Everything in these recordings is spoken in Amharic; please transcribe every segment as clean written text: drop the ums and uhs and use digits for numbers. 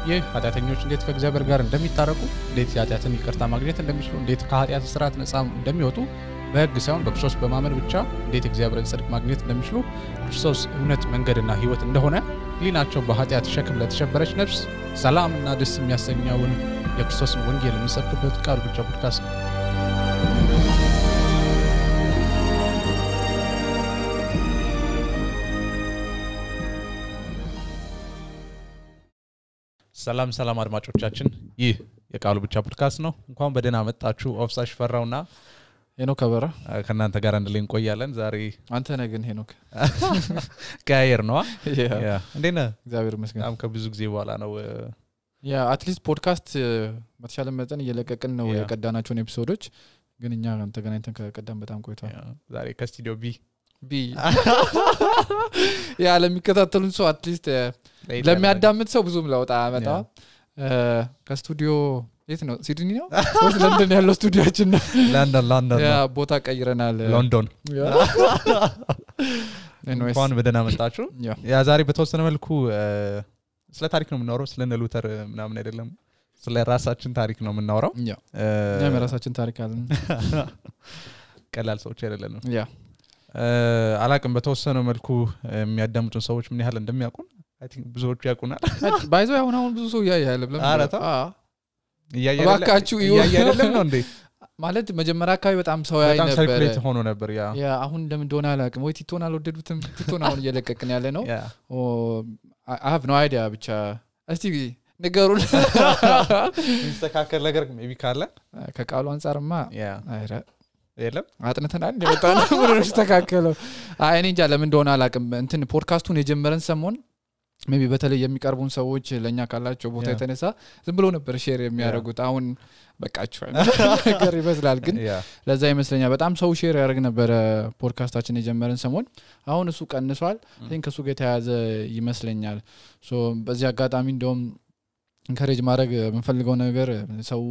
ኃጢአተኞች እንዴት ከእግዚአብሔር ጋር እንደሚታረቁ እንዴት ኃጢአትን ይቅርታ ማግኘት እንደሚችሉ እንዴት ከኃጢአት ስርዓት ነፃ እንደሚወጡ በሕግ ሳይሆን በክርስቶስ በማመን ብቻ እንዴት እግዚአብሔርን ጽድቅ ማግኘት እንደሚችሉ ክርስቶስ እውነት መንገድና ሕይወት እንደሆነ ሊናቸው በኃጢአት ሸክም ለተሸበረች ነፍስ ሰላምና ደስ የሚያሰኘውን የክርስቶስን ወንጌል የሚሰብክበት ቃሉ ብቻ ፖድካስት ነው። ሰላም አድማጮቻችን ይህ የቃሉ ብቻ ፖድካስት ነው። እንኳን በደህና መጣችሁ። ኦፍሳሽ ፈራውና ሄኖክ አበራ ከናንተ ጋር አንድ ላይ እንቆያለን። ዛሬ አንተ ነህ ግን ሄኖክ ጋየር ነው ያ እንዴና እግዚአብሔር ይመስገን በጣም ከብዙ ጊዜ በኋላ ነው ያ አትሊስት ፖድካስት በተሻለ መጠን እየለቀቅን ነው የቀዳናቸውን ኤፒሶዶች ግን እኛ ተገናኝተን ከቀዳን በጣም ቆይቷል። ዛሬ ከስቱዲዮ ቢ ያ ለሚከታተሉን ሰው አትሊስት ለሚያዳምጥ ሰው ብዙም ለውጥ አመጣ ከስቱዲዮ የት ነው ሲድኒ ነው ወይስ ለንደን ያለው ስቱዲዮአችን ነው? ለንደን ያ ቦታ ቀይረናል ሎንዶን። እንኳን በደህና መጣችሁ። ያ ዛሬ በተወሰነ መልኩ ስለ ታሪክ ነው የምናወራው። ስለ ሉተር ምናምን አይደለም፣ ስለ ራሳችን ታሪክ ነው የምናወራው። ያ የራሳችን ታሪክ አለን። ቀላል ሰዎች አይደለንም። ያ አላቅም በተወሰነ መልኩ የሚያዳምጡን ሰዎች ምን ያህል እንደሚያውቁን አይ ቲንክ ብዙዎቹ ያውቁናል። ባይዘው አሁን ብዙ ሰው ያያል ብለን እያያችሁ አይደለም ነው እንዴ? ማለት መጀመሪያ አካባቢ በጣም ሰው ያይ ነበር፣ ሰርኩሌት ሆኖ ነበር። ያ አሁን እንደምን እንደሆነ አላቅም። ወይ ቲቶን አልወደዱትም። ቲቶን አሁን እየለቀቅን ያለ ነው። I have no idea ብቻ እስቲ ነገሩን እንስተካከል ነገር ሜቢ ካለ ከቃሉ አንፃርማ አይረ የለም አጥንተናል እንደመጣን ነው ተስተካከለው። አይ እኔ እንጃ ለምን እንደሆነ አላቅም። እንትን ፖድካስቱን የጀመረን ሰሞን ሜቢ በተለይ የሚቀርቡን ሰዎች ለኛ ካላቸው ቦታ የተነሳ ዝም ብሎ ነበር ሼር የሚያደርጉት። አሁን በቃቸው ነገር ይመስላል ግን ለዛ ይመስለኛል በጣም ሰው ሼር ያደርግ ነበር ፖድካስታችን የጀመረን ሰሞን። አሁን እሱ ቀንሷል። ከሱ ጋር ተያያዘ ይመስለኛል። ሶ በዚህ አጋጣሚ እንደውም ኢንካሬጅ ማድረግ የምንፈልገው ነገር ሰው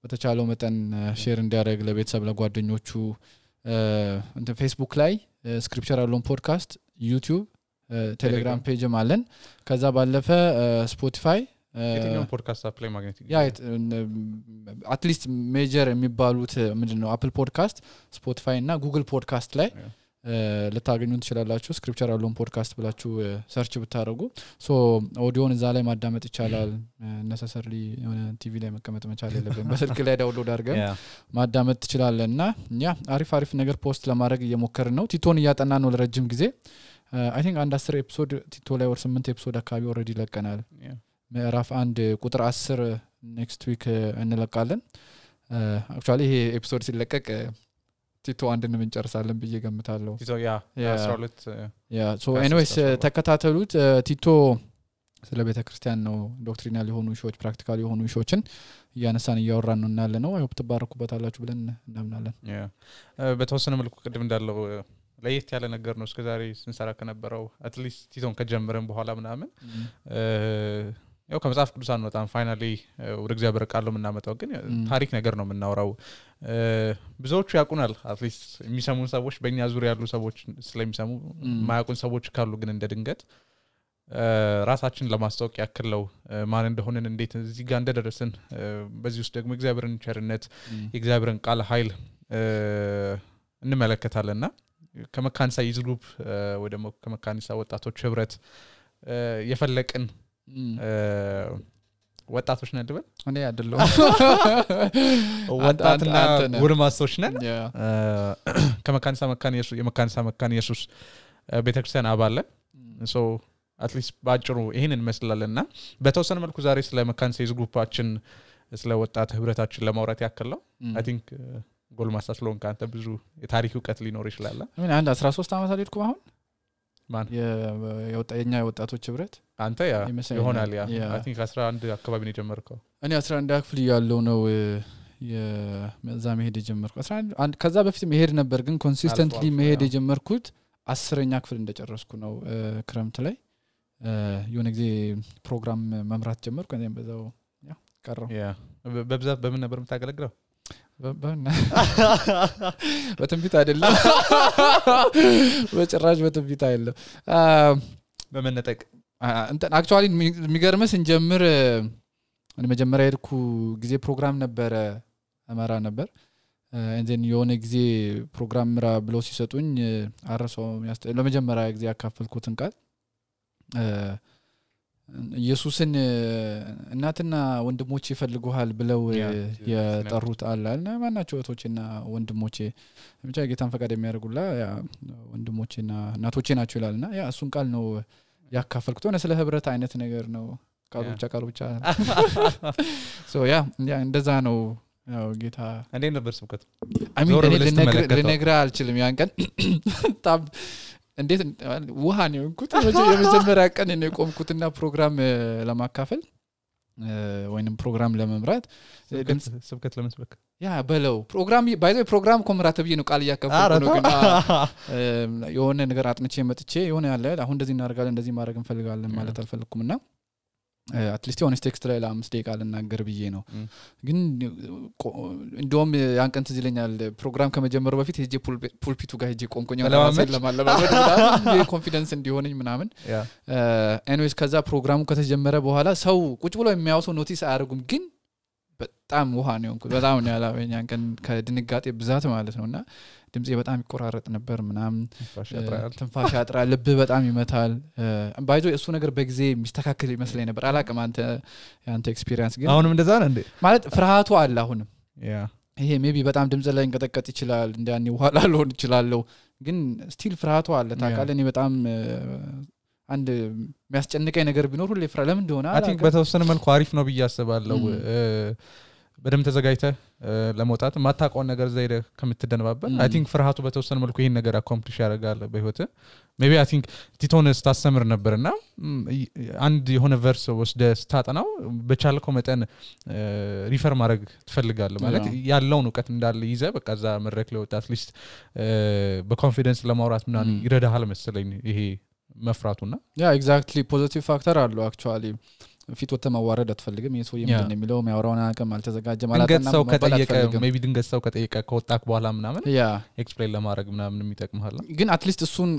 በተቻለው መጠን ሼር እንዲያደርግ ለቤተሰብ ለጓደኞቹ እንትን ፌስቡክ ላይ ስክሪፕቸር ያለውን ፖድካስት ዩቲዩብ ቴሌግራም ፔጅም አለን። ከዛ ባለፈ ስፖቲፋይ የትኛው ፖድካስት አፕ ላይ ማግኘት አትሊስት ሜጀር የሚባሉት ምንድነው አፕል ፖድካስት ስፖቲፋይ እና ጉግል ፖድካስት ላይ ልታገኙን ትችላላችሁ። ስክሪፕቸር ያለውን ፖድካስት ብላችሁ ሰርች ብታደርጉ ሶ ኦዲዮን እዛ ላይ ማዳመጥ ይቻላል። ነሰሰርሊ የሆነ ቲቪ ላይ መቀመጥ መቻል የለብንም። በስልክ ላይ ዳውንሎድ አድርገን ማዳመጥ ትችላለና ያ አሪፍ ነገር ፖስት ለማድረግ እየሞከርን ነው። ቲቶን እያጠና ነው ለረጅም ጊዜ I think አንድ 10 ኤፒሶድ ቲቶ ላይ ወር 8 ኤፒሶድ አካባቢ ኦሬዲ ለቀናል። ምዕራፍ 1 ቁጥር 10 ኔክስት ዊክ እንለቃለን። actually ይሄ ኤፒሶድ ሲለቀቅ ቲቶ አንድን እንጨርሳለን ብዬ ገምታለሁ። ቲቶ ያ 12 ያ so anyways ተከታተሉት። ቲቶ ስለ ቤተክርስቲያን ነው ዶክትሪናል የሆኑ ሾዎች ፕራክቲካል የሆኑ ሾዎችን እያነሳን እያወራን ነው እናለ ነው። አይሆፕ ተባረኩበታላችሁ ብለን እናምናለን። ያ በተወሰነ መልኩ ቅድም እንዳለው ለየት ያለ ነገር ነው እስከዛሬ ስንሰራ ከነበረው አትሊስት ቲቶን ከጀመረን በኋላ ምናምን ያው ከመጽሐፍ ቅዱስ አንወጣም። ፋይናሊ ወደ እግዚአብሔር ቃል ነው የምናመጣው፣ ግን ታሪክ ነገር ነው የምናወራው። ብዙዎቹ ያውቁናል። አትሊስት የሚሰሙን ሰዎች በእኛ ዙሪያ ያሉ ሰዎች ስለሚሰሙ ማያውቁን ሰዎች ካሉ ግን እንደ ድንገት ራሳችን ለማስተዋወቅ ያክል ነው ማን እንደሆነን እንዴት እዚህ ጋር እንደደረስን በዚህ ውስጥ ደግሞ እግዚአብሔርን ቸርነት የእግዚአብሔርን ቃል ኃይል እንመለከታለንና ከመካኒሳ ይዝሉብ ወይ ደግሞ ከመካኒሳ ወጣቶች ህብረት የፈለቅን ወጣቶች ነን አይደል? እኔ አይደለም ወጣትና ጉርማሶች ነን። ከመካኒሳ መካን ኢየሱስ ቤተክርስቲያን አባል ሶ አትሊስት ባጭሩ ይሄንን እንመስላለንና በተወሰነ መልኩ ዛሬ ስለ መካኒሳ ይዝሉባችን ስለ ወጣት ህብረታችን ለማውራት ያክል ነው። አይ ቲንክ ጎልማሳ ስለሆንክ አንተ ብዙ የታሪክ ዕውቀት ሊኖር ይችላል። ምን አንድ 13 አመት አልሄድኩ አሁን ማን የኛ ወጣቶች ህብረት አንተ ያ ይሆናል ያ አይ ቲንክ 11 አካባቢ ነው የጀመርከው። እኔ 11 አክፍል ያለው ነው የዛ መሄድ የጀመርኩ 11 ከዛ በፊት መሄድ ነበር ግን ኮንሲስተንትሊ መሄድ የጀመርኩት 10ኛ ክፍል እንደጨረስኩ ነው። ክረምት ላይ የሆነ ጊዜ ፕሮግራም መምራት ጀመርኩ። እኔም በዛው ያ ቀረው። ያ በብዛት በምን ነበር የምታገለግለው? በትንቢት አይደለም በጭራሽ በትንቢት አይደለም። በመነጠቅ እንትን አክቹአሊ የሚገርምስ እንጀምር መጀመሪያ ሄድኩ ጊዜ ፕሮግራም ነበረ አማራ ነበር እንዴን የሆነ ጊዜ ፕሮግራም ምራ ብሎ ሲሰጡኝ አረሰው ለመጀመሪያ ጊዜ ያካፈልኩትን ቃል ኢየሱስን እናትና ወንድሞቼ ይፈልጉሃል ብለው የጠሩት አላልና ማናቸው እህቶችና ወንድሞቼ ብቻ ጌታን ፈቃድ የሚያደርጉላ ያ ወንድሞቼና እናቶቼ ናቸው ይላልና ያ እሱን ቃል ነው ያካፈልኩት ሆነ ስለ ህብረት አይነት ነገር ነው ቃሉ ብቻ ሶ ያ እንደዛ ነው ያው ጌታ እንዴ ነበር ስብከቱ ልነግራ አልችልም ያን ቀን ታብ እንዴት ውሃ ነው እንኩት የመጀመሪያ ቀን ነው የቆምኩትና ፕሮግራም ለማካፈል ወይንም ፕሮግራም ለመምራት ስብከት ለመስበክ ያ በለው ፕሮግራም ኮምራት ብዬ ነው ቃል ያካፈልኩ ነው ግን የሆነ ነገር አጥንቼ መጥቼ የሆነ ያለ አሁን እንደዚህ እናደርጋለን እንደዚህ ማድረግ እንፈልጋለን ማለት አልፈልኩምና at least on text ላይ ለ5 ደቂቃ ልናገር ብዬ ነው ግን እንደውም ያንቀንት ዝለኛል ፕሮግራም ከመጀመሩ በፊት ሄጄ ፑልፒቱ ጋር ሄጄ ቆምቆኝ ለማለማመድ ኮንፊደንስ እንዲሆነኝ ምናምን anyways ከዛ ፕሮግራሙ ከተጀመረ በኋላ ሰው ቁጭ ብሎ የሚያውሰው ኖቲስ አያርጉም ግን በጣም ውሃ ነው እንኩ በጣም ነው ያላበኝ ያንቀን ከድንጋጤ ብዛት ማለት ነውና ድምጼ በጣም ይቆራረጥ ነበር ምናምን ትንፋሽ ያጥራል ልብ በጣም ይመታል ባይዞ እሱ ነገር በጊዜ የሚስተካከል ይመስለኝ ነበር አላቀም አንተ ኤክስፒሪየንስ ግን አሁንም እንደዛ ነው እንዴ ማለት ፍርሃቱ አለ አሁንም ይሄ ሜቢ በጣም ድምጽ ላይ እንቀጠቀጥ ይችላል እንደያኔ ውሃ ላልሆን ይችላል ግን ስቲል ፍርሃቱ አለ ታውቃለህ እኔ በጣም አንድ የሚያስጨንቀኝ ነገር ቢኖር ሁሌ ፍራ ለምን እንደሆነ አይ ቲንክ በተወሰነ መልኩ አሪፍ ነው ብያስባለሁ በደም ተዘጋጅተ ለመውጣት ማታውቀው ነገር ዘይደ ከምትደነባበል አይ ቲንክ ፍርሃቱ በተወሰነ መልኩ ይሄን ነገር አኮምፕሊሽ ያደርጋል በህይወት ሜቢ አይ ቲንክ ቲቶንስ ታስተምር ነበርና አንድ የሆነ ቨርስ ወስደ ስታጠናው በቻልከው መጠን ሪፈር ማድረግ ትፈልጋለህ ማለት ያለውን ዕውቀት እንዳለ ይዘ በቃ ዛ መድረክ ላይ ወጣ አትሊስት በኮንፊደንስ ለማውራት ምናምን ይረዳሃል መሰለኝ ይሄ መፍራቱና ያ ኤግዛክትሊ ፖዚቲቭ ፋክተር አለው አክቹአሊ ፊት ወተ ማዋረድ አትፈልግም የሰው የምንድነው የሚለው የሚያወራውን አቀም አልተዘጋጀ ማለትና ሰው ከጠየቀ ሜቢ ድንገት ሰው ከጠየቀ ከወጣክ በኋላ ምናምን ያ ኤክስፕሌን ለማድረግ ምናምን የሚጠቅምሃል ግን አትሊስት እሱን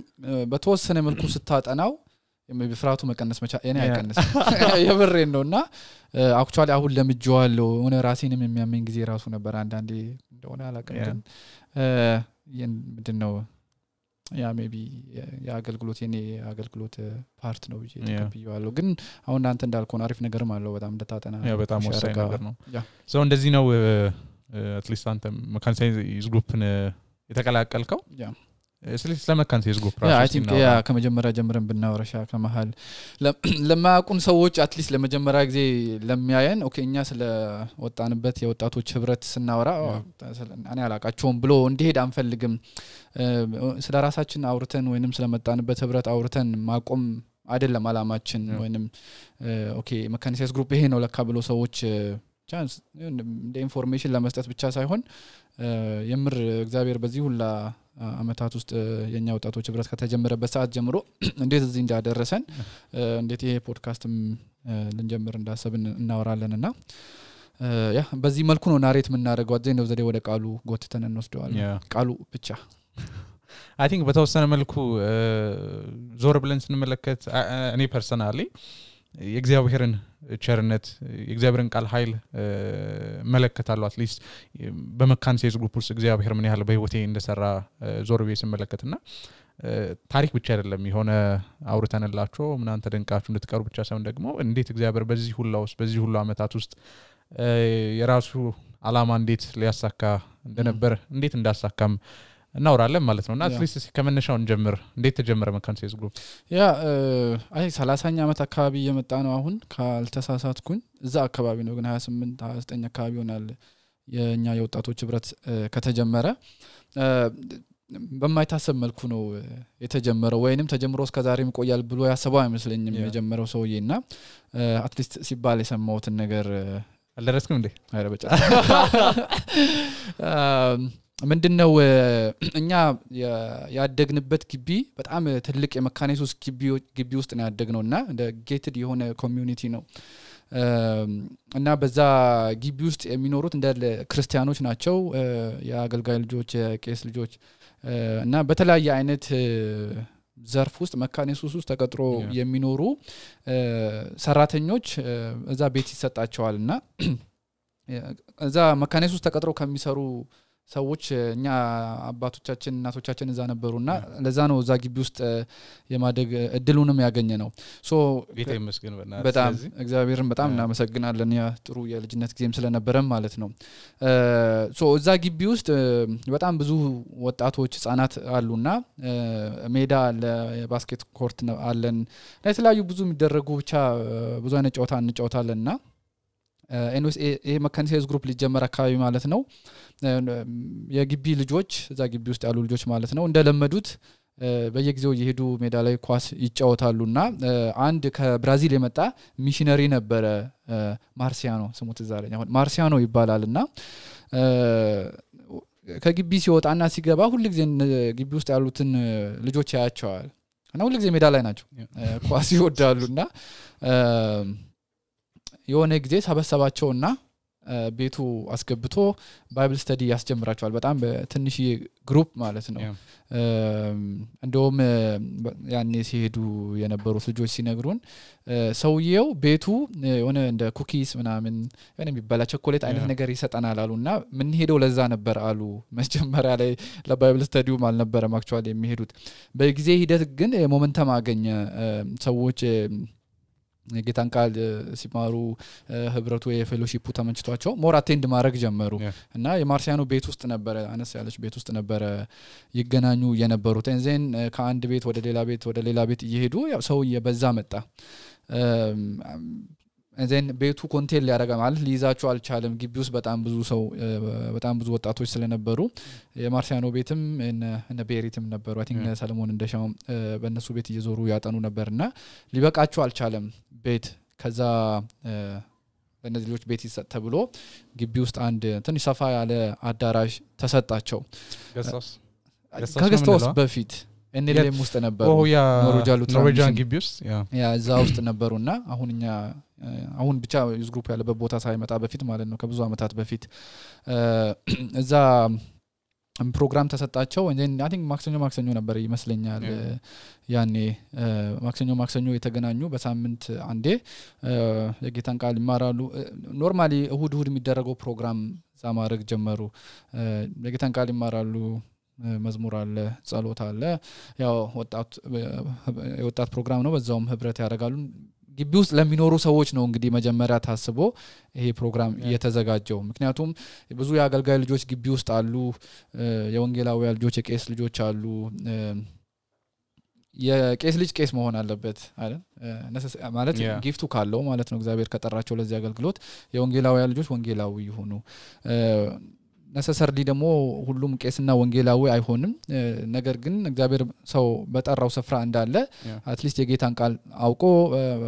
በተወሰነ መልኩ ስታጠናው ሜቢ ፍራቱ መቀነስ መቻ እኔ አይቀነስ የብሬን ነውና አክቹአሊ አሁን ለምጆዋለው ሆነ ራሴንም የሚያመኝ ጊዜ ራሱ ነበር አንዳንዴ እንደሆነ አላቀም ምንድነው ያ ሜቢ ያገልግሎት የኔ አገልግሎት ፓርት ነው ብዬ ተቀብያለሁ ግን አሁን አንተ እንዳልከው አሪፍ ነገርም አለው በጣም እንደታጠና ያ በጣም ወሳኝ ነገር ነው ሶ እንደዚህ ነው at least አንተ መካኒሳይዝ ግሩፕን የተቀላቀልከው ያ ስለመካኒሳይዝ ግሩፕ ራሱ አይ ቲንክ ያ ከመጀመሪያ ጀምረን ብናወራሻ ከመሃል ለማያውቁን ሰዎች at least ለመጀመሪያ ጊዜ ለሚያየን ኦኬ እኛ ስለ ወጣንበት የወጣቶች ህብረት ስናወራ እኔ አላቃቸውም ብሎ እንዲሄድ አንፈልግም ስለ ራሳችን አውርተን ወይንም ስለመጣንበት ህብረት አውርተን ማቆም አይደለም አላማችን ወይንም ኦኬ መካኒሳይዝ ግሩፕ ይሄ ነው ለካ ብሎ ሰዎች ቻንስ እንደ ኢንፎርሜሽን ለመስጠት ብቻ ሳይሆን የምር እግዚአብሔር በዚህ ሁላ አመታት ውስጥ የኛ ወጣቶች ህብረት ከተጀመረበት ሰዓት ጀምሮ እንዴት እዚህ እንዳደረሰን እንዴት ይሄ ፖድካስትም ልንጀምር እንዳሰብን እናወራለንና ያ በዚህ መልኩ ነው ናሬት የምናደርገው አዘይ ነው ዘዴ ወደ ቃሉ ጎትተን እንወስደዋለን ቃሉ ብቻ አይ ቲንክ በተወሰነ መልኩ ዞር ብለን ስንመለከት እኔ ፐርሰናሊ የእግዚአብሔርን ቸርነት የእግዚአብሔርን ቃል ኃይል መለከታለሁ አትሊስት በመካኒሳይዝ ግሩፕ ውስጥ እግዚአብሔር ምን ያህል በህይወቴ እንደሰራ ዞር ብዬ ስመለከትና ታሪክ ብቻ አይደለም የሆነ አውርተንላችሁ ምናን ተደንቃችሁ እንድትቀሩ ብቻ ሳይሆን ደግሞ እንዴት እግዚአብሔር በዚህ ሁሉ ውስጥ በዚህ ሁሉ አመታት ውስጥ የራሱ አላማ እንዴት ሊያሳካ እንደነበር እንዴት እንዳሳካም እናወራለን ማለት ነውና አትሊስት ከመነሻው እንጀምር እንዴት ተጀመረ መካኒሳይዝ ግሩፕ ያ አይ 30ኛ አመት አካባቢ የመጣ ነው አሁን ካልተሳሳትኩኝ እዛ አካባቢ ነው ግን 28 29 አካባቢ ሆናል የኛ የወጣቶች ህብረት ከተጀመረ በማይታሰብ መልኩ ነው የተጀመረው ወይንም ተጀምሮ እስከ ዛሬም ቆያል ብሎ ያሰበው አይመስለኝም የጀመረው ሰውዬና አትሊስት ሲባል የሰማውትን ነገር አልደረስኩም እንዴ አይረበጫ ምንድነው እኛ ያደግንበት ግቢ በጣም ትልቅ የመካኒሳይዝ ግቢ ውስጥ ነው ያደግነውና እንደ ጌትድ የሆነ ኮሚዩኒቲ ነው እና በዛ ግቢ ውስጥ የሚኖሩት እንደ ክርስቲያኖች ናቸው የአገልጋይ ልጆች የቄስ ልጆች እና በተለያየ አይነት ዘርፍ ውስጥ መካነ ኢየሱስ ውስጥ ተቀጥሮ የሚኖሩ ሰራተኞች እዛ ቤት ይሰጣቸዋልና እዛ መካነ ኢየሱስ ተቀጥሮ ከሚሰሩ ሰዎች እኛ አባቶቻችን እናቶቻችን እዛ ነበሩና ለዛ ነው እዛ ግቢ ውስጥ የማደግ እድሉንም ያገኘ ነው ሶ ጌታ ይመስገን በጣም እግዚአብሔርን በጣም እናመሰግናለን ያ ጥሩ የልጅነት ጊዜም ስለነበረም ማለት ነው ሶ እዛ ግቢ ውስጥ በጣም ብዙ ወጣቶች ህፃናት አሉና ሜዳ ለባስኬት ኮርት አለን ለተለያዩ ብዙ የሚደረጉ ብቻ ብዙ አይነት ጨዋታ እንጫወታለንና ኤንኤስ ይሄ መካነ ኢየሱስ ግሩፕ ሊጀመር አካባቢ ማለት ነው የግቢ ልጆች እዛ ግቢ ውስጥ ያሉ ልጆች ማለት ነው እንደለመዱት በየጊዜው እየሄዱ ሜዳ ላይ ኳስ ይጫወታሉና አንድ ከብራዚል የመጣ ሚሽነሪ ነበረ ማርሲያኖ ስሙ ተዛረኛ አሁን ማርሲያኖ ይባላልና ከግቢ ሲወጣና ሲገባ ሁሉ ጊዜ ግቢ ውስጥ ያሉትን ልጆች ያያቸዋል እና ሁሉ ጊዜ ሜዳ ላይ ናቸው ኳስ ይወዳሉና የሆነ ጊዜ ሰበሰባቸውና ቤቱ አስገብቶ ባይብል ስተዲ ያስጀምራቸዋል በጣም በትንሽ ግሩፕ ማለት ነው እንደውም ያኔ ሲሄዱ የነበሩት ልጆች ሲነግሩን ሰውየው ቤቱ የሆነ እንደ ኩኪስ ምናምን የሆነ የሚበላ ቸኮሌት አይነት ነገር ይሰጣናል አሉና ምን ሄደው ለዛ ነበር አሉ መጀመሪያ ላይ ለባይብል ስተዲው አልነበረም አክቹአሊ የሚሄዱት በጊዜ ሂደት ግን ሞመንተም አገኘ ሰዎች ጌታን ቃል ሲማሩ ህብረቱ የፌሎሺፑ ተመንጭቷቸው ሞር አቴንድ ማድረግ ጀመሩ እና የማርሲያኖ ቤት ውስጥ ነበር አነስ ያለች ቤት ውስጥ ነበር ይገናኙ የነበሩት እንዘን ከአንድ ቤት ወደ ሌላ ቤት እየሄዱ ያው ሰው እየበዛ መጣ እንዘን ቤቱ ኮንቴል ያደረገ ማለት ሊይዛቸው አልቻለም ግቢ ውስጥ በጣም ብዙ ሰው በጣም ብዙ ወጣቶች ስለነበሩ የማርሲያኖ ቤትም እነ ቤሪትም ነበሩ አይ ቲንክ ሰለሞን እንደሻው በእነሱ ቤት እየዞሩ ያጠኑ ነበርና ሊበቃቸው አልቻለም ቤት ከዛ በእነዚህ ልጆች ቤት ይሰጥ ተብሎ ግቢ ውስጥ አንድ ትንሽ ሰፋ ያለ አዳራሽ ተሰጣቸው ከገስቶስ በፊት እነለም ውስጥ ነበሩ ኖርዌጂያን ግቢ ውስጥ ያ እዛ ውስጥ ነበሩና አሁን ብቻ ዩዝ ግሩፕ ያለበት ቦታ ሳይመጣ በፊት ማለት ነው ከብዙ አመታት በፊት እዛ ፕሮግራም ተሰጣቸው እንዴ አይ ቲንክ ማክሰኞ ነበር ይመስለኛል ያኔ ማክሰኞ የተገናኙ በሳምንት አንዴ የጌታን ቃል ይማራሉ ኖርማሊ እሁድ የሚደረገው ፕሮግራም ዛማረግ ጀመሩ የጌታን ቃል ይማራሉ መዝሙር አለ ጸሎት አለ ያው ወጣት ፕሮግራም ነው በዛውም ህብረት ያደርጋሉ ግቢ ውስጥ ለሚኖሩ ሰዎች ነው እንግዲህ መጀመሪያ ታስቦ ይሄ ፕሮግራም እየተዘጋጀው ምክንያቱም ብዙ ያገልጋይ ልጆች ግቢ ውስጥ አሉ የወንጌላዊ ልጆች የቄስ ልጆች አሉ የቄስ ልጅ ቄስ መሆን አለበት አይደል ማለት ጊፍቱ ካለው ማለት ነው እግዚአብሔር ከጠራቸው ለዚህ አገልግሎት የወንጌላዊ ልጆች ወንጌላዊ ይሆኑ necessarily ደግሞ ሁሉም ቄስና ወንጌላዊ አይሆንም ነገር ግን እግዚአብሔር ሰው በጠራው ስፍራ እንዳለ አትሊስት የጌታን ቃል አውቆ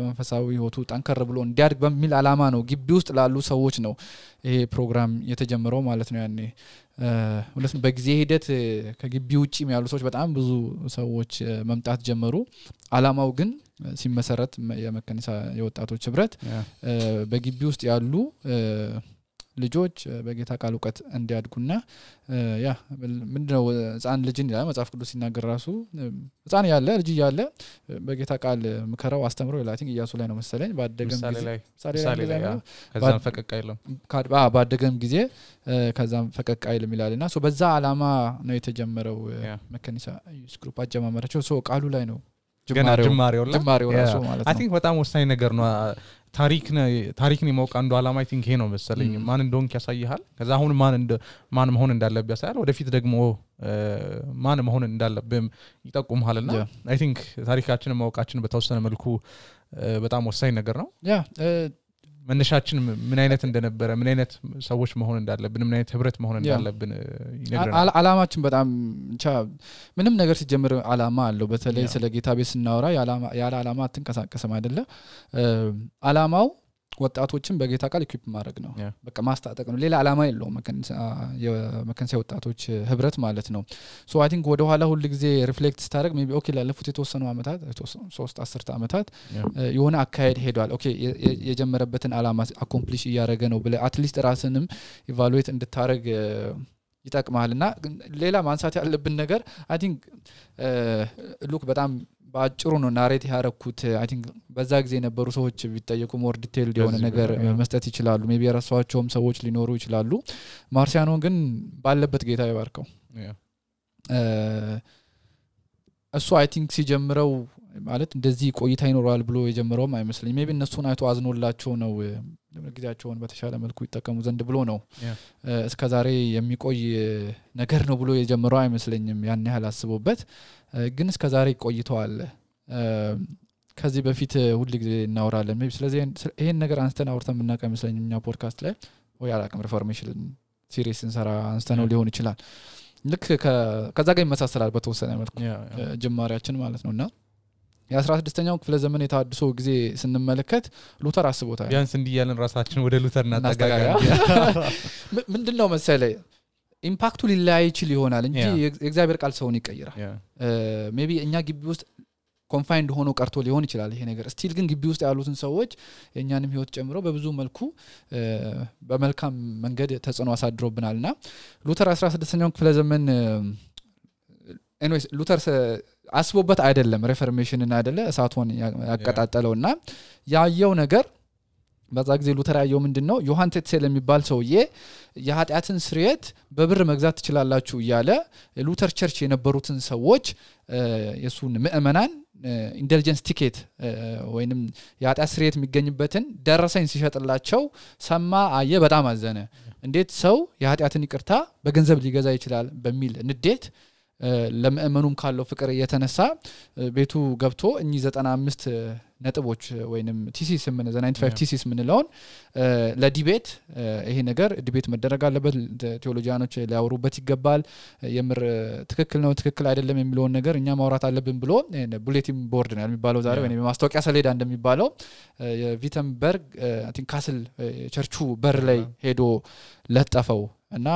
መንፈሳዊ ህይወቱ ጠንከር ብሎ እንዲያድግ በሚል አላማ ነው ግቢ ውስጥ ላሉ ሰዎች ነው ይሄ ፕሮግራም የተጀመረው ማለት ነው ያኔ ሁለቱም በጊዜ ሂደት ከግቢ ውጪም ያሉ ሰዎች በጣም ብዙ ሰዎች መምጣት ጀመሩ አላማው ግን ሲመሰረት የመከነሳ የወጣቶች ህብረት በግቢ ውስጥ ያሉ ልጆች በጌታ ቃል ዕውቀት እንዲያድጉና ያ ምንድነው ጻን ልጅን ይላል መጽሐፍ ቅዱስ ሲናገር ራሱ ጻን ያለ ልጅ ያለ በጌታ ቃል ምከራው አስተምሮ ይላቲንግ ኢያሱ ላይ ነው መሰለኝ ባደገም ጊዜ ከዛም ፈቀቅ አይልም ባደገም ጊዜ ከዛም ፈቀቅ አይልም ይላልና ሶ በዛ አላማ ነው የተጀመረው መከኒሳ ዩስ ግሩፕ አጀማመራቸው ሶ ቃሉ ላይ ነው ጅማሬው ራሱ ማለት ነው አይ ቲንክ በጣም ወሳኝ ነገር ነው ታሪክን የማውቅ አንዱ አላማ አይ ቲንክ ይሄ ነው መሰለኝ ማን እንደሆንክ ያሳይሃል ከዛ አሁን ማን መሆን እንዳለበት ያሳያል ወደፊት ደግሞ ማን መሆን እንዳለበት ይጠቁምሃልና አይ ቲንክ ታሪካችንን ማወቃችን በተወሰነ መልኩ በጣም ወሳኝ ነገር ነው ያ መነሻችን ምን አይነት እንደነበረ ምን አይነት ሰዎች መሆን እንዳለብን ምን አይነት ህብረት መሆን እንዳለብን ይነግረናል አላማችን በጣም ምንም ነገር ሲጀምር አላማ አለው በተለይ ስለ ጌታ ቤት ስናወራ ያለ አላማ አትንቀሳቀስም አይደለ አላማው ወጣቶችን በጌታ ቃል ኢኩዊፕ ማድረግ ነው በቃ ማስታጠቅ ነው ሌላ አላማ የለውም መከንሳ ወጣቶች ህብረት ማለት ነው ሶ አይ ቲንክ ወደ ኋላ ሁሉ ጊዜ ሪፍሌክት ስታደርግ ሜቢ ኦኬ ላለፉት የተወሰኑ አመታት 3-10 አመታት የሆነ አካሄድ ሄዷል ኦኬ የጀመረበትን አላማ አኮምፕሊሽ ያደረገ ነው ብለ አትሊስት ራስንም ኢቫሉዌት እንድታረግ ይጠቅማልና ሌላ ማንሳት ያለብን ነገር አይ ቲንክ ሉክ በጣም ባጭሩ ነው ናሬት ያረኩት አይ ቲንክ በዛ ጊዜ የነበሩ ሰዎች ቢጠየቁ ሞር ዲቴይልድ የሆነ ነገር መስጠት ይችላሉ ሜቢ የራሳቸውም ሰዎች ሊኖሩ ይችላሉ ማርሲያኖ ግን ባለበት ጌታ ይባርከው እሱ አይ ቲንክ ሲጀምረው ማለት እንደዚህ ቆይታ ይኖራል ብሎ የጀመረው አይመስልኝ ሜቢ እነሱን አይቶ አዝኖላቸው ነው ጊዜያቸውን በተሻለ መልኩ ይጠቀሙ ዘንድ ብሎ ነው እስከ ዛሬ የሚቆይ ነገር ነው ብሎ የጀመረው አይመስልኝም ያን ያህል አስቦበት ግን እስከ ዛሬ ቆይቷል ከዚህ በፊት ሁሉ ጊዜ እናወራለን ሜቢ ስለዚህ ይሄን ነገር አንስተን አውርተን ምናቀ አይመስልኝም ኛ ፖድካስት ላይ ወይ አላቀም ሪፎርሜሽን ሲሪስ እንሰራ አንስተነው ሊሆን ይችላል ልክ ከዛ ጋር ይመሳሰላል በተወሰነ መልኩ ጅማሬያችን ማለት ነውና የ16ኛው ክፍለ ዘመን የታድሶ ጊዜ ስንመለከት ሉተር አስቦታል ቢያንስ እንዲያለን ራሳችን ወደ ሉተር እናጠጋጋ ምንድነው መሰለኝ ኢምፓክቱ ሊላይ ይችል ይሆናል እንጂ የእግዚአብሔር ቃል ሰውን ይቀይራል ሜቢ እኛ ግቢ ውስጥ ኮንፋይንድ ሆኖ ቀርቶ ሊሆን ይችላል ይሄ ነገር ስቲል ግን ግቢ ውስጥ ያሉትን ሰዎች የኛንም ህይወት ጨምሮ በብዙ መልኩ በመልካም መንገድ ተጽዕኖ አሳድሮብናልና ሉተር 16ኛው ክፍለ ዘመን ኤኒዌይስ ሉተር አስቦበት አይደለም ሪፎርሜሽንን አይደለ እሳቱን ያቀጣጠለውና ያየው ነገር በዛ ጊዜ ሉተር ያየው ምንድነው ዮሐን ቴትሴል የሚባል ሰውዬ የኃጢያትን ስርየት በብር መግዛት ትችላላችሁ ያለ ሉተር ቸርች የነበሩትን ሰዎች የሱን ምእመናን ኢንተለጀንስ ቲኬት ወይንም የኃጢያት ስርየት የሚገኝበትን ደረሰኝ ሲሸጥላቸው ሰማ አየ በጣም አዘነ እንዴት ሰው የኃጢያትን ይቅርታ በገንዘብ ሊገዛ ይችላል በሚል ንዴት ለምእመኑም ካለው ፍቅር የተነሳ ቤቱ ገብቶ እኚ 95 ነጥቦች ወይንም ቲሲስ ምን 95 ቲሲስ ምንለውን ለዲቤት ይሄ ነገር ዲቤት መደረግ አለበት ቴዎሎጂያኖች ሊያወሩበት ይገባል የምር ትክክል ነው ትክክል አይደለም የሚለው ነገር እኛ ማውራት አለብን ብሎ ቡሌቲን ቦርድ ነው የሚባለው ዛሬ ወይንም ማስታወቂያ ሰሌዳ እንደሚባለው የቪተንበርግ አይ ቲንክ ካስል ቸርቹ በር ላይ ሄዶ ለጠፈው እና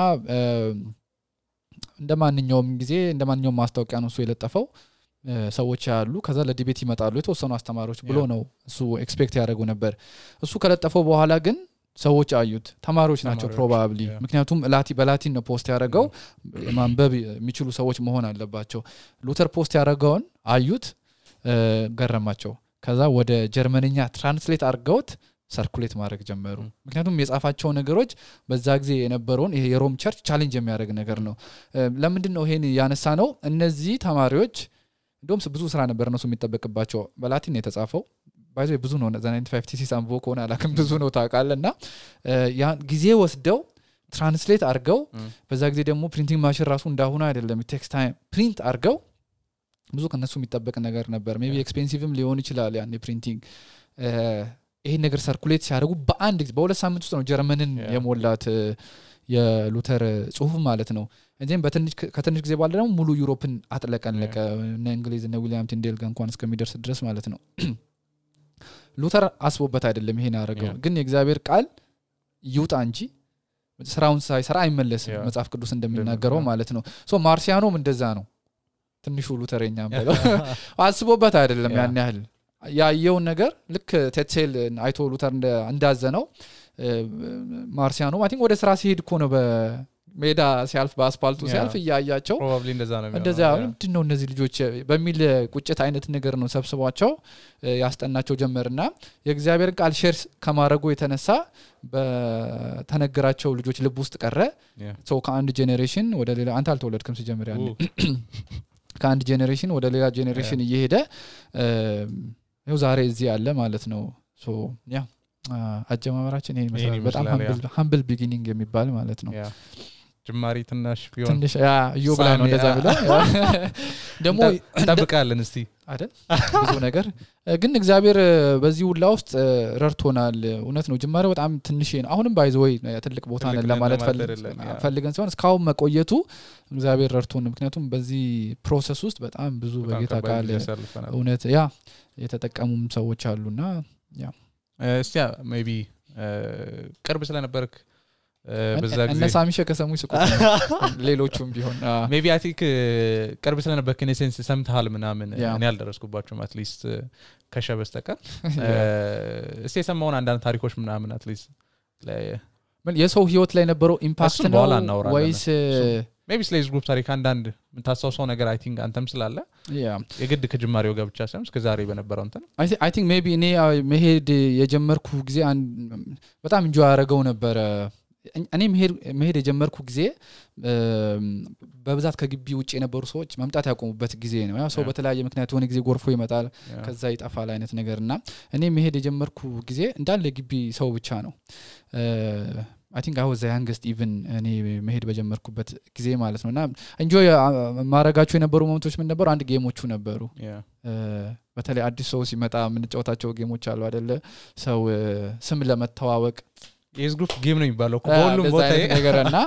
እንደማንኛውም ጊዜ እንደማንኛውም ማስታወቂያ ነው እሱ የለጠፈው ሰዎች ያሉ ከዛ ለዲቤት ይመጣሉ የተወሰኑ አስተማሪዎች ብሎ ነው እሱ ኤክስፔክት ያደርጉ ነበር እሱ ከለጠፈው በኋላ ግን ሰዎች አዩት ተማሪዎች ናቸው ፕሮባብሊ ምክንያቱም በላቲን ነው ፖስት ያደረገው ማንበብ የሚችሉ ሰዎች መሆን አለባቸው ሉተር ፖስት ያደረገውን አዩት ገረማቸው ከዛ ወደ ጀርመንኛ ትራንስሌት አድርገውት ሰርኩሌት ማድረግ ጀመሩ ምክንያቱም የጻፋቸው ነገሮች በዛ ጊዜ የነበረውን ይሄ የሮም ቸርች ቻሌንጅ የሚያደርግ ነገር ነው ለምንድን ነው ይሄን ያነሳ ነው እነዚህ ተማሪዎች እንደውም ብዙ ስራ ነበር እነሱ የሚጠበቅባቸው በላቲን ነው የተጻፈው ባይዘ ብዙ ነው 95 ቲሲስ አንቦ ከሆነ አላከም ብዙ ነው ታውቃለና ያ ጊዜ ወስደው ትራንስሌት አድርገው በዛ ጊዜ ደግሞ ፕሪንቲንግ ማሽን ራሱ እንዳሁን አይደለም ቴክስት ታይም ፕሪንት አድርገው ብዙ ከነሱ የሚጠበቅ ነገር ነበር ሜቢ ኤክስፔንሲቭም ሊሆን ይችላል ያን ፕሪንቲንግ ይሄ ነገር ሰርኩሌት ሲያደርጉ በአንድ ጊዜ በሁለት ሳምንት ውስጥ ነው ጀርመንን የሞላት የሉተር ጽሁፍ ማለት ነው እንዴም ከትንሽ ጊዜ በኋላ ደግሞ ሙሉ ዩሮፕን አጥለቀለቀ እና እንግሊዝ እና ዊሊያም ቲንዴል ጋር እንኳን እስከሚደርስ ድረስ ማለት ነው ሉተር አስቦበት አይደለም ይሄን ያደረገው ግን የእግዚአብሔር ቃል ይውጣ እንጂ ስራውን ሳይሰራ አይመለስም መጽሐፍ ቅዱስ እንደሚናገረው ማለት ነው ሶ ማርሲያኖም እንደዛ ነው ትንሹ ሉተርኛም ብለው አስቦበት አይደለም ያን ያህል ያየው ነገር ልክ ቴትሴል አይቶ ሉተር እንዳዘነው ማርሲያኖ አይ ቲንክ ወደ ስራ ሲሄድ እኮ ነው በሜዳ ሲያልፍ በአስፋልቱ ሲያልፍ ያያያቸው ፕሮባብሊ እንደዛ ነው እንደዛ ምንድነው እነዚህ ልጆች በሚል ቁጭት አይነት ነገር ነው ሰብስቧቸው ያስጠናቸው ጀመርና የእግዚአብሔር ቃል ሼር ከማድረጉ የተነሳ በተነገራቸው ልጆች ልብ ውስጥ ቀረ ሶ ከአንድ ጄኔሬሽን ወደ ሌላ አንተ አልተወለድክም ሲጀምር ያለ ከአንድ ጄኔሬሽን ወደ ሌላ ጄኔሬሽን እየሄደ ነው ዛሬ እዚህ ያለ ማለት ነው ሶ ያ አጀማመራችን ይሄ መሰለኝ በጣም humble beginning የሚባል ማለት ነው ጅማሪ ትንሽ ቢሆን ትንሽ ያ ዮብላ ነው እንደዛ ብለው ደሞ ተጠብቃለን እስቲ አይደል ብዙ ነገር ግን እግዚአብሔር በዚህ ሁላ ውስጥ ረርቶናል እውነት ነው ጅማሬው በጣም ትንሽ ነው አሁንም ባይዘው ትልቅ ቦታ ነን ለማለት ፈልገን ሲሆን እስካሁን መቆየቱ እግዚአብሔር ረርቶን ምክንያቱም በዚህ ፕሮሰስ ውስጥ በጣም ብዙ በጌታ ቃል እውነት ያ የተጠቀሙም ሰዎች አሉና ያ እስቲ ሜቢ ቅርብ ስለነበርክ በዛ ጊዜ እነ ሳሚሸ ከሰሙ ይስቁ ሌሎቹም ቢሆን ሜቢ አይ ቲንክ ቅርብ ስለነበርክ እኔ ሴንስ ሰምተሃል ምናምን እኔ አልደረስኩባቸውም አትሊስት ከሸበስተቀር እስቲ ሰማውን አንዳንድ ታሪኮች ምናምን አትሊስት የሰው ህይወት ላይ ነበረው ኢምፓክት ነው ወይስ maybe slaves group ታሪክ አንዳንድ ምታሳውሰው ነገር I think አንተም ስላለ የግድ ከጅማሬው ጋር ብቻ ሳይሆን እስከዛሬ በነበረው እንትን I think maybe እኔ መሄድ የጀመርኩ ጊዜ በጣም እንጆይ አረጋው ነበር እኔ መሄድ የጀመርኩ ጊዜ በብዛት ከግቢ ውጪ የነበሩ ሰዎች መምጣት ያቆሙበት ጊዜ ነው ያ ሰው በተለያየ ምክንያት ሆነ ጊዜ ጎርፎ ይመጣል ከዛ ይጣፋል አይነት ነገርና እኔ መሄድ የጀመርኩ ጊዜ እንዳለ ግቢ ሰው ብቻ ነው I think I was the youngest even እኔ መሄድ በጀመርኩበት ጊዜ ማለት ነውና enjoy ማረጋቸው የነበሩ ሞመንቶች ምን ነበሩ አንድ ጌሞቹ ነበሩ በተለይ አዲስ ሰው ሲመጣ ምን ጫወታቸው ጌሞች አሉ አይደለ ሰው ስም ለመተዋወቅ የስ ግሩፕ ጌም ነው የሚባለው ሁሉም ቦታ ነገርና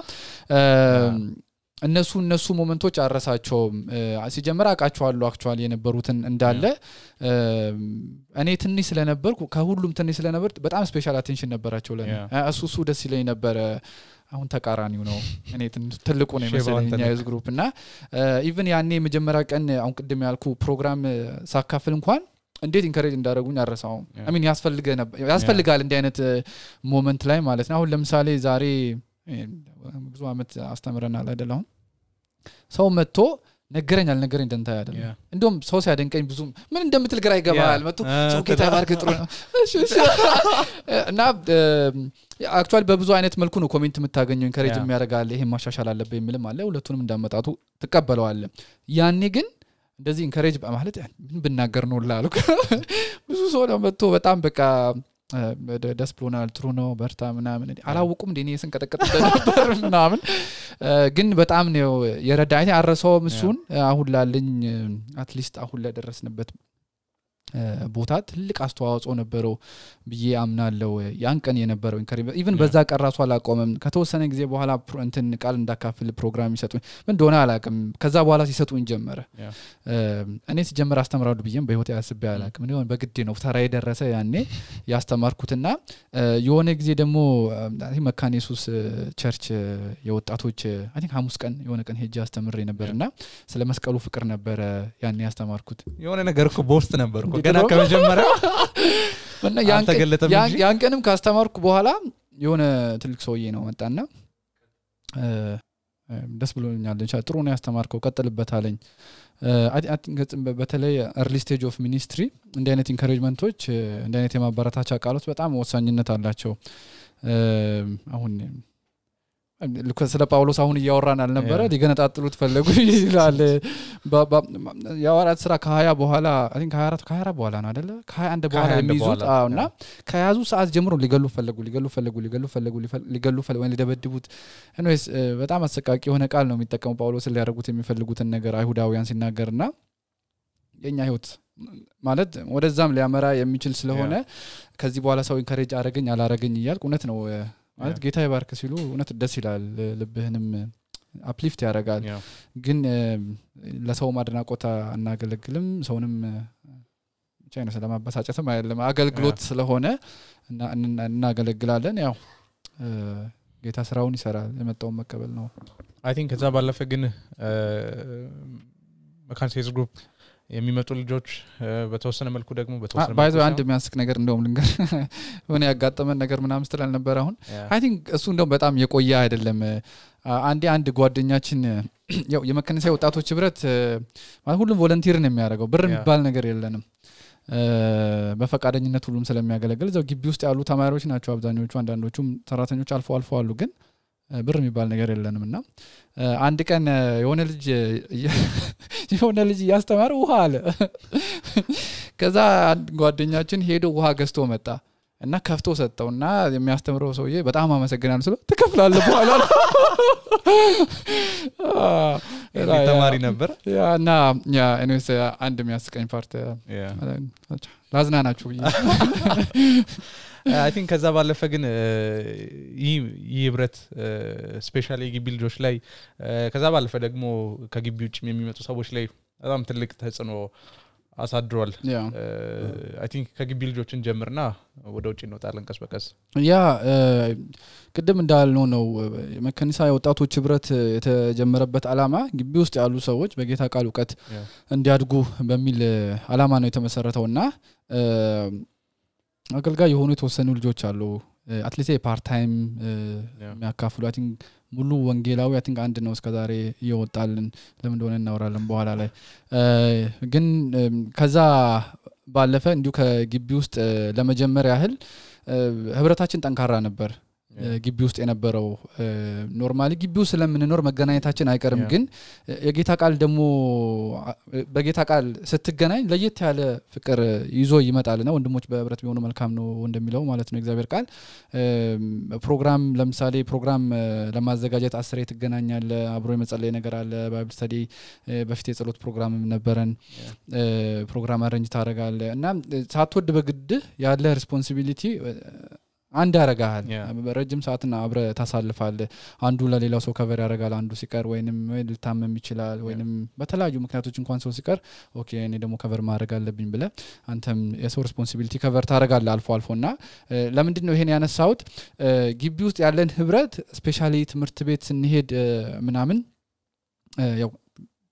እነሱ ሞመንቶች አረሳቸውም ሲጀመር አቃቸዋለሁ አክቹአሊ የነበሩትን እንዳለ እኔ ትንሽ ስለነበርኩ ከሁሉም ትንሽ ስለነበር በጣም ስፔሻል አቴንሽን ነበራቸው ለኔ እሱ ደስ ይለኝ ነበር አሁን ተቃራኒው ነው እኔ ትልቁ ነው መሰለኝ የስ ግሩፕ እና ኢቭን ያኔ መጀመሪያ ቀን አሁን ቅድም ያልኩ ፕሮግራም ሳካፍል እንኳን እንዴት ኢንከሬጅ እንዳደረጉኝ አረሳው I mean ያስፈልጋል እንደ አይነት ሞመንት ላይ ማለት ነው አሁን ለምሳሌ ዛሬ ብዙ አመት አስተምረናል አይደለም ሰው መጥቶ ነገረኛል ነገረኝ ደንታ አይደለም እንደውም ሰው ሲያደንቀኝ ብዙ ምን እንደምትል ግራ ይገባል መጥቶ ሰው ጌታ ባርክ ጥሩ ነው እና አክቹአሊ በብዙ አይነት መልኩ ነው ኮሜንት የምታገኘው ኢንከሬጅ የሚያደርጋል ይሄ ማሻሻል አለበት የሚልም አለ ሁለቱንም እንዳመጣጡ ተቀበለዋል ያኔ ግን እንደዚህ ኢንከሬጅ ማለት ምን ብናገር ነው ላሉ ብዙ ሰው ነው መጥቶ በጣም በቃ ደስ ብሎናል ጥሩ ነው በርታ ምናምን አላውቁም እንዴ እኔ ስንቀጠቀጥ ነበር ምናምን ግን በጣም ነው የረዳኝ አረሰው ምሱን አሁን ላልኝ አትሊስት አሁን ለደረስንበት ቦታ ትልቅ አስተዋጽኦ ነበረው ብዬ አምናለሁ ያን ቀን የነበረው ኢንከሬጅ ኢቭን በዛ ቀራሱ አላቆመም ከተወሰነ ጊዜ በኋላ እንትን ቃል እንዳካፍል ፕሮግራም ይሰጡኝ ምን እንደሆነ አላቅም ከዛ በኋላ ሲሰጡኝ ጀመረ እኔ ሲጀምር አስተምራለሁ ብዬም በህይወት ያስብ ያላቅም ነው በግድ ነው ተራይ ደረሰ ያኔ ያስተማርኩትና የሆነ ጊዜ ደግሞ መካነ ኢየሱስ ቸርች የወጣቶች I think ሐሙስ ቀን የሆነ ቀን ሄጄ አስተምሬ ነበርና ስለ መስቀሉ ፍቅር ነበር ያኔ ያስተማርኩት የሆነ ነገር እኮ ቦስት ነበር ገና ከመጀመሪያው እና ያን ቀንም ካስተማርኩ በኋላ የሆነ ትልቅ ሰውዬ ነው መጣና ደስ ብሎኛል ጥሩ ነው ያስተማርከው ቀጥልበት አለኝ I think በተለይ early stage of ministry እንደ አይነት ኢንከሬጅመንቶች እንደ አይነት የማበረታቻ ቃሎች በጣም ወሳኝነት አላቸው አሁን ስለ ጳውሎስ አሁን ያወራን አልነበረ ሊገነጣጥሉት ፈለጉ ይላል ያወራት ስራ ከ20 በኋላ I think 24 በኋላ ነው አይደለ ከ21 በኋላ የሚይዙት እና ከያዙ ሰዓት ጀምሮ ሊገሉ ፈለጉ ወይ ሊደበድቡት anyways በጣም አሰቃቂ የሆነ ቃል ነው የሚጠቀሙ ጳውሎስ ሊያደርጉት የሚፈልጉትን ነገር አይሁዳውያን ሲናገርና የኛ ህይወት ማለት ወደዛም ሊያመራ የሚችል ስለሆነ ከዚህ በኋላ ሰው ኢንከሬጅ አረጋኝ አላረጋኝ ይያልኩ እውነት ነው ማለት ጌታ ይባርክ ሲሉ እውነት ደስ ይላል ልብህንም አፕሊፍት ያረጋል ግን ለሰው ማድናቆታ እናገለግልም ሰውንም ቻይና ስለማበሳጨትም አይደለም አገልግሎት ስለሆነ እናገለግላለን ያው ጌታ ስራውን ይሰራል የመጣው መቀበል ነው I think ከዛ ባለፈ ግን መካነ ኢየሱስ ግሩፕ የሚመጡ ልጆች በተወሰነ መልኩ ደግሞ በተወሰነ ባይዞ አንድ የሚያስቅ ነገር እንደውም ልንገር ሆነ ያጋጠመን ነገር ምናምን ስትል ነበር አሁን I think እሱ እንደውም በጣም የቆየ አይደለም አንድ ጓደኛችን ያው የመከነሳይ ወጣቶች ህብረት ማለት ሁሉም ቮለንቲር ነው የሚያደርገው ብር የሚባል ነገር የለንም በፈቃደኝነት ሁሉም ስለሚያገለግል እዛው ግቢ ውስጥ ያሉ ተማሪዎች ናቸው አብዛኞቹ አንዳንዶቹም ሰራተኞች አልፎ አሉ ግን ብር የሚባል ነገር የለንምና አንድ ቀን የሆነ ልጅ ያስተማረ ውሃ አለ ከዛ ጓደኛችን ሄዶ ውሃ ገዝቶ መጣ እና ከፍቶ ሰጠውና የሚያስተምረው ሰውዬ በጣም አመሰግናለሁ ስለ ተከፍላለህ በኋላ ተማሪ ነበር ያና anyways አንድ የሚያስቀኝ ፓርት ላዝናናችሁ I think ከዛ ባለፈ ግን ይብረት ስፔሻሊ ግቢ ልጆች ላይ ከዛ ባለፈ ደግሞ ከግቢ ውጭ የሚመጡ ሰዎች ላይ በጣም ትልቅ ተጽዕኖ አሳድሯል I think ከግቢ ልጆችን ጀምርና ወደ ውጭ እንወጣለን ቀስ በቀስ ያ ቅድም እንዳልነው ነው መከኒሳ የወጣቶች ህብረት የተጀመረበት አላማ ግቢ ውስጥ ያሉ ሰዎች በጌታ ቃል ዕውቀት እንዲያድጉ በሚል አላማ ነው የተመሰረተውና አገልጋይ የሆኑ የተወሰኑ ልጆች አሉ አትሊስት ፓርት ታይም የሚያካፍሉ አይ ቲንክ ሙሉ ወንጌላዊ አይ ቲንክ አንድ ነው እስከዛሬ ይወጣልን ለምን እንደሆነ እናወራለን በኋላ ላይ ግን ከዛ ባለፈ እንዲሁ ከግቢ ውስጥ ለመጀመር ያህል ህብረታችን ጠንካራ ነበር ግቢ ውስጥ የነበረው ኖርማሊ ግቢው ስለምንኖር መገናኘታችን አይቀርም ግን የጌታ ቃል ደግሞ በጌታ ቃል ስትገናኝ ለየት ያለ ፍቅር ይዞ ይመጣልና ወንድሞች በህብረት ቢሆኑ መልካም ነው እንደሚለው ማለት ነው እግዚአብሔር ቃል ፕሮግራም ለምሳሌ ፕሮግራም ለማዘጋጀት 10 ትገናኛለ አብሮ የመጸለይ ነገር አለ ባይብል ስተዲ በፊት የጸሎት ፕሮግራም ነበረን ፕሮግራም አረንጅ ታደርጋለ እና ሳትወድ በግድ ያለ ሪስፖንሲቢሊቲ አንድ ያረጋል ረጅም ሰዓትና አብረ ታሳልፋለ አንዱ ለሌላው ሰው ከቨር ያረጋል አንዱ ሲቀር ወይንም ልታመም ይችላል ወይንም በተለያዩ ምክንያቶች እንኳን ሰው ሲቀር ኦኬ እኔ ደግሞ ከቨር ማድረግ አለብኝ ብለ አንተም የሰው ሪስፖንሲቢሊቲ ከቨር ታረጋለ አልፎና ለምንድን ነው ይሄን ያነሳውት ግቢ ውስጥ ያለን ህብረት ስፔሻሊ ትምህርት ቤት ስንሄድ ምናምን ያው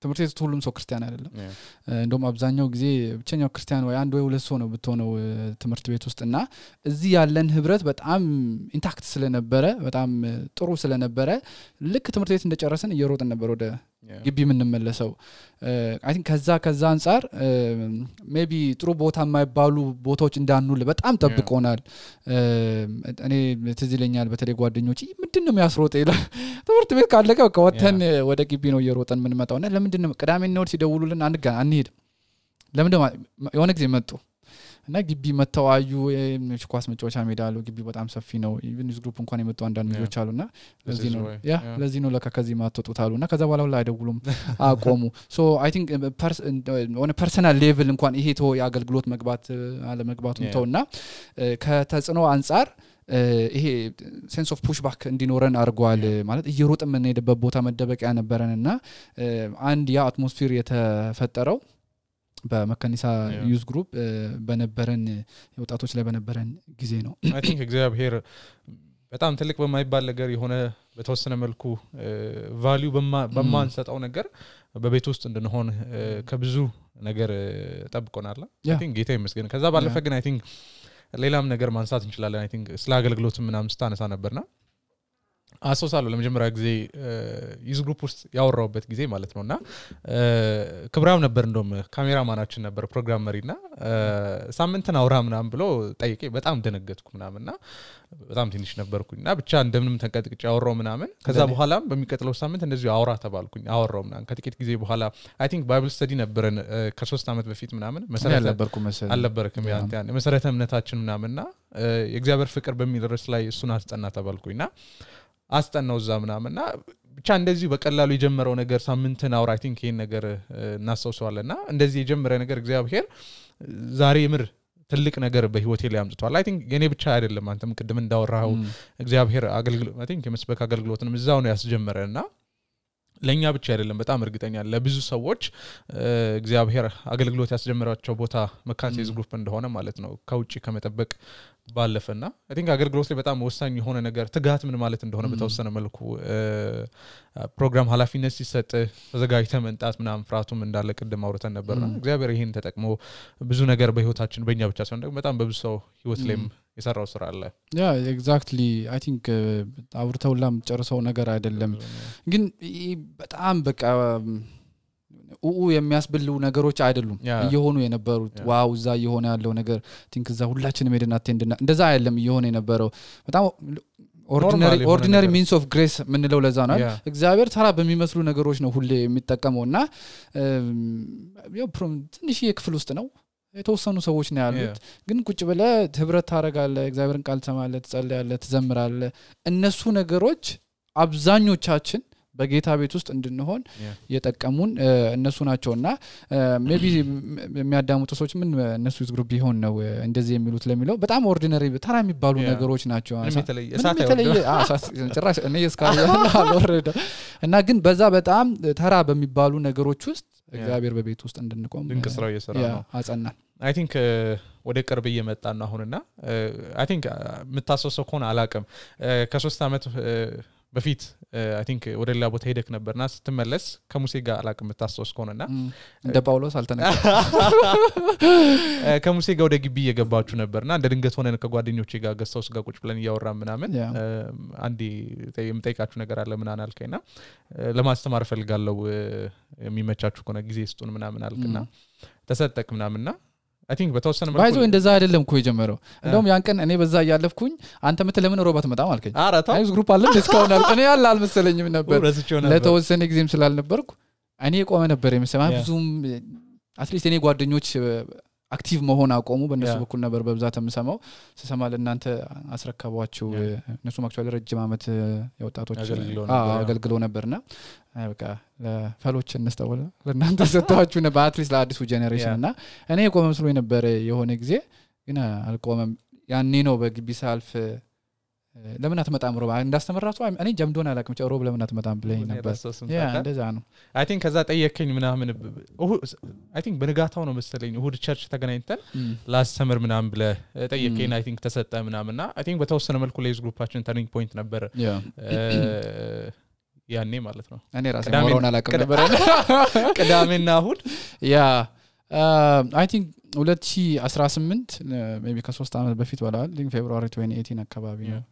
ትምህርት ቤት ሁሉም ሰው ክርስቲያን አይደለም እንደውም አብዛኛው ጊዜ ብቸኛው ክርስቲያን ወይ አንድ ወይ ሁለት ሰው ነው ብትሆነው ትምህርት ቤት ውስጥና እዚህ ያለን ህብረት በጣም ኢንታክት ስለነበረ በጣም ጥሩ ስለነበረ ልክ ትምህርት ቤት እንደጨረሰን እየሮጥን ነበር ወደ ግቢ ምንመለሰው አይ ቲንክ ከዛ አንፃር ሜቢ ጥሩ ቦታ የማይባሉ ቦታዎች እንዳንውል በጣም ጠብቆናል እኔ ትዝ ይለኛል በተለይ ጓደኞቼ ምንድነው የሚያስሮጥ ይላል ትምህርት ቤት ካለቀ በቃ ወተን ወደ ግቢ ነው እየሮጠን ምንመጣውና ለምንድነው ቅዳሜና እሁድ ሲደውሉልን አንሄድ ለምንድነው የሆነ ጊዜ መጡ እና ግቢ መተዋዩ ኳስ መጫወቻ ሜዳ አለው ግቢ በጣም ሰፊ ነው ኢቭን ዩዝ ግሩፕ እንኳን የመጡ አንዳንድ ልጆች አሉና ለዚህ ነው ለከዚህ ማጥጡት አሉና ከዛ በኋላ ላይ አይደውሉም አቆሙ ሶ አይ ቲንክ ኦን ፐርሰናል ሌቭል እንኳን ይሄ ተው የአገልግሎት መግባት አለ መግባቱን ተውና ከተጽኖ አንፃር ይሄ ሴንስ ኦፍ ፑሽ ባክ እንዲኖረን አርጓል ማለት እየሮጥ ምን ሄደበት ቦታ መደበቂያ ነበረንና አንድ ያ አትሞስፌር የተፈጠረው በመካኒሳ ዩዝ ግሩፕ በነበረን ወጣቶች ላይ በነበረን ጊዜ ነው አይ ቲንክ እግዚአብሔር በጣም ትልቅ በማይባል ነገር የሆነ በተወሰነ መልኩ ቫልዩ በማንሰጣው ነገር በቤት ውስጥ እንድንሆን ከብዙ ነገር ጠብቆናል አይ ቲንክ ጌታ ይመስገን ከዛ ባለፈ ግን አይ ቲንክ ሌላም ነገር ማንሳት እንችላለን አይ ቲንክ ስለ አገልግሎት ምናምን ስታነሳ ነበርና አሶሳለሁ ለመጀመሪያ ጊዜ ዩዝ ግሩፕ ውስጥ ያወራውበት ጊዜ ማለት ነውና ክብራም ነበር እንደውም ካሜራማናችን ነበር ፕሮግራም መሪና ሳምንትን አውራ ምናምን ብሎ ጠይቄ በጣም ደነገጥኩ ምናምንና በጣም ትንሽ ነበርኩኝና ብቻ እንደምንም ተንቀጥቅጭ ያወራው ምናምን ከዛ በኋላም በሚቀጥለው ሳምንት እንደዚህ አውራ ተባልኩኝ አወራው ምናምን ከጥቂት ጊዜ በኋላ አይ ቲንክ ባይብል ስተዲ ነበረን ከ3 አመት በፊት ምናምን መሰረተ ነበርኩ መሰለኝ አልነበረከም ያን መሰረተ እምነታችን ምናምንና የእግዚአብሔር ፍቅር በሚል ርዕስ ላይ እሱን አስጠና ተባልኩኝና አስጠናው ዛምናምና ብቻ እንደዚህ በቀላሉ የጀመረው ነገር ሳምንትን አውራ አይ ቲንክ ይሄን ነገር እናስተውሰዋለና እንደዚህ የጀመረ ነገር እግዚአብሔር ዛሬ ምር ትልቅ ነገር በህይወቴ ላይ አምጥቷል አይ ቲንክ የኔ ብቻ አይደለም አንተም ቅድም እንዳወራው እግዚአብሔር አገልግሎት አይ ቲንክ የመስበክ አገልግሎትንም እዛው ነው ያስጀመረና ለኛ ብቻ አይደለም በጣም እርግጠኛ ለብዙ ሰዎች እግዚአብሔር አገልግሎት ያስጀመራቸው ቦታ መካኒሳ ዩዝ ግሩፕ እንደሆነ ማለት ነው ከውጪ ከመጠበቅ ባለፈና አይ ቲንክ አገልግሎት ላይ በጣም ወሳኝ የሆነ ነገር ትጋት ምን ማለት እንደሆነ በተወሰነ መልኩ ፕሮግራም ኃላፊነት ሲሰጥ ተዘጋጅተ መንጣት ምናምን ፍራቱም እንዳለ ቅድም አውርተን ነበርና እግዚአብሔር ይሄን ተጠቅሞ ብዙ ነገር በህይወታችን በእኛ ብቻ ሳይሆን ደግሞ በጣም በብዙ ሰው ህይወት ላይም የሰራው ስራ አለ ያ ኤግዛክትሊ አይ ቲንክ አውርተውላም ጨርሰው ነገር አይደለም ግን በጣም በቃ የሚያስብሉ ነገሮች አይደሉም እየሆኑ የነበሩት ዋው እዛ እየሆነ ያለው ነገር ቲንክ እዛ ሁላችንም ሄደን አቴንድና እንደዛ አይደለም እየሆነ የነበረው በጣም ኦርዲናሪ ሚንስ ኦፍ ግሬስ ምንለው ለዛ ነው እግዚአብሔር ተራ በሚመስሉ ነገሮች ነው ሁሌ የሚጠቀመውና ያው ትንሽ የክፍል ውስጥ ነው የተወሰኑ ሰዎች ነው ያሉት ግን ቁጭ ብለ ህብረት ታረጋለ እግዚአብሔርን ቃል ተማለ ትጸልያለ ትዘምራለ እነሱ ነገሮች አብዛኞቻችን በጌታ ቤት ውስጥ እንድንሆን የጠቀሙን እነሱ ናቸውና ሜቢ የሚያዳምጡ ሰዎች ምን እነሱ ዩዝ ግሩፕ ቢሆን ነው እንደዚህ የሚሉት ለሚለው በጣም ኦርዲናሪ ተራ የሚባሉ ነገሮች ናቸው ጭራሽ እኔ እስካሁን አልወረደ እና ግን በዛ በጣም ተራ በሚባሉ ነገሮች ውስጥ እግዚአብሔር በቤት ውስጥ እንድንቆም ድንቅ ስራው እየሰራ ነው አጸናን አይ ቲንክ ወደ ቅርብ እየመጣን ነው አሁንና አይ ቲንክ መታሰሰው ኮን አላቀም ከ3 አመት በፊት አይ ቲንክ ወደ ሌላ ቦታ ሄደክ ነበርና ስትመለስ ከሙሴ ጋር አላቅም ተታስወስ ከሆነና እንደ ጳውሎስ አልተነካ ከሙሴ ጋር ወደ ግቢ እየገባችሁ ነበርና እንደ ድንገት ሆነን ከጓደኞቼ ጋር ገስታውስ ጋር ቁጭ ብለን ያወራን ምናምን አንዲ የምጠይቃችሁ ነገር አለ ምናምን አልከኝና ለማስተማር ፈልጋለሁ የሚመቻችሁ ከሆነ ጊዜ ስጡን ምናምን አልከና ተሰጠቅ ምናምንና I think በተወሰነ መልኩ ባይዞ እንደዛ አይደለም እኮ የጀመረው እንደውም ያን ቀን እኔ በዛ ያያለፍኩኝ አንተ ለምን ሮባት መጣ ማልከኝ አይስ ግሩፕ አለ ዲስካውንት አለ እኔ ያለ አልመሰለኝም ነበር ለተወሰነ ጊዜም ስላልነበርኩ እኔ ቆመ ነበር የምሰማ ብዙም አትሊስት እኔ ጓደኞች አክቲቭ መሆን አቆሙ በእነሱ በኩል ነበር በብዛት የምሰማው ስሰማ ለእናንተ አስረከቧቸው እነሱም አክቹአሊ ረጅም አመት የወጣቶች አገልግሎ ነበርና በቃ ለፈሎች እንስተውል ለእናንተ ሰጣችሁ ነበር አትሊስት ለአዲሱ ጄኔሬሽን እና እኔ ቆመ መስሎ ነበር የሆነ ጊዜ ግን አልቆመም ያኔ ነው በግቢ ሳልፍ ለምን አትመጣም ሮባ እንዳስተመራቱ እኔ ጀምዶን አላቅም ሮብ ለምን አትመጣም ብለኝ ነበር ያ እንደዛ ነው አይ ቲንክ ከዛ ጠየከኝ ምናምን አይ ቲንክ በንጋታው ነው መሰለኝ እሁድ ቸርች ተገናኝተን ላስተምር ምናምን ብለ ጠየከኝ አይ ቲንክ ተሰጠ ምናምንና አይ ቲንክ በተወሰነ መልኩ ለይዝ ግሩፓችን ተርኒንግ ፖይንት ነበር ያኔ ማለት ነው እኔ ራሴ ሞሮን አላቅም ነበር ቅዳሜና እሁድ ያ አይ ቲንክ 2018 ሜቢ ከ3 አመት በፊት ወላል ሊንክ ፌብሩዋሪ 2018 አካባቢ ነው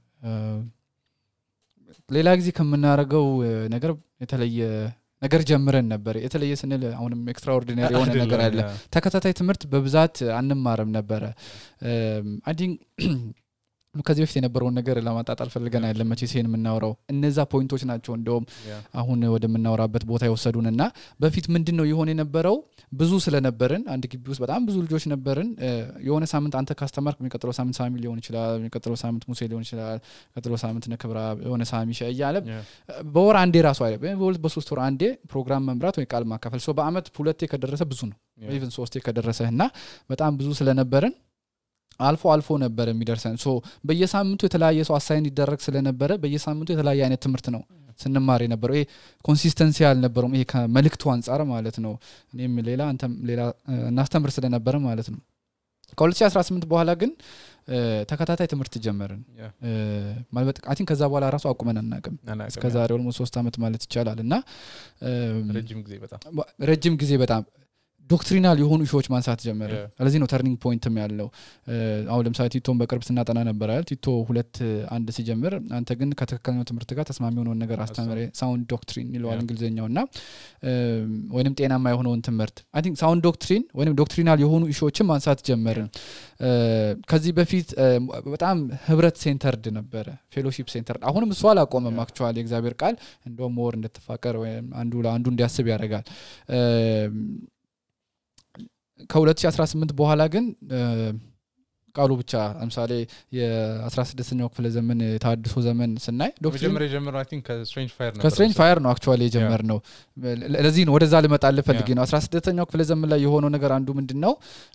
ሌላ ጊዜ ከምናረጋው ነገር የተለየ ነገር ጀምረን ነበር የተለየ ስንል አሁንም ኤክስትራኦርዲናሪ የሆነ ነገር አለ ተከታታይ ትምህርት በብዛት አንማርም ነበር አይ ቲንክ ከዚህ በፊት የነበረውን ነገር ለማጣጣል ፈልገን አይደለም መቼ ሲን የምናወራው እነዛ ፖይንቶች ናቸው እንደውም አሁን ወደምናወራበት ቦታ ይወሰዱንና በፊት ምንድነው ይሆን የነበረው ብዙ ስለነበርን አንድ ግቢ ውስጥ በጣም ብዙ ልጆች ነበርን የሆነ ሳምንት አንተ ካስተማርክ የሚቀጥለው ሳምንት ሳሚ ሊሆን ይችላል የሚቀጥለው ሳምንት ሙሴ ሊሆን ይችላል የሚቀጥለው ሳምንት ነክብራ የሆነ ሳሚ ሸያለ በወር አንዴ ራሱ አይደል በሁለት በሶስት ወር አንዴ ፕሮግራም መምራት ወይ ቃል ማካፈል ሶ በአመት ሁለቴ ከደረሰ ብዙ ነው ኢቭን ሶስቴ ከደረሰና በጣም ብዙ ስለነበርን አልፎ ነበር የሚደርሰን ሶ በየሳምንቱ የተለያየ ሰው አሳይን ይደረግ ስለነበረ በየሳምንቱ የተለያየ አይነት ትምህርት ነው ስንማር ነበር ይሄ ኮንሲስተንሲ ያልነበረው ይሄ ከመልእክቱ አንፃር ማለት ነው እኔም ሌላ አንተም ሌላ እናስተምር ስለነበረ ማለት ነው ከ2018 በኋላ ግን ተከታታይ ትምህርት ጀመርን ማለት አይ ቲንክ ከዛ በኋላ ራሱ አቁመን አናቀም እስከ ዛሬ ኦልሞስት 3 አመት ማለት ይቻላልና ረጅም ጊዜ በጣም ዶክትሪናል የሆኑ ኢሹዎች ማንሳት ጀመረ ስለዚህ ነው ተርኒንግ ፖይንትም ያለው አሁን ለምሳሌ ቲቶን በቅርብ ስናጠና ነበር አይደል ቲቶ 2:1 ሲጀምር አንተ ግን ከተከከለኛው ትምህርት ጋር ተስማሚ የሆነውን ነገር አስተምረ ሳውንድ ዶክትሪን ይለዋል እንግሊዘኛውና ወይንም ጤናማ የሆነውን ትምህርት አይ ቲንክ ሳውንድ ዶክትሪን ወይንም ዶክትሪናል የሆኑ ኢሹዎችን ማንሳት ጀመርን ከዚህ በፊት በጣም ህብረት ሴንተርድ ነበረ ፌሎሺፕ ሴንተርድ አሁንም እሱ አላቆመም አክቹአሊ እግዚአብሔር ቃል እንደውም ሞር እንድትፋቀር ወይ አንዱ ለአንዱ እንዲያስብ ያደርጋል ከ2018 በኋላ ግን ቃሉ ብቻ ለምሳሌ የ16ኛው ክፍለ ዘመን ታድሶ ዘመን ስናይ ዶክትሪን ጀመረው አይ ቲንክ ከስትሬንጅ ፋየር ነው አክቹአሊ የጀመርነው ለዚህ ነው ወደዛ ልመጣል ፈልጌ ነው 16ኛው ክፍለ ዘመን ላይ የሆነው ነገር አንዱ ምንድነው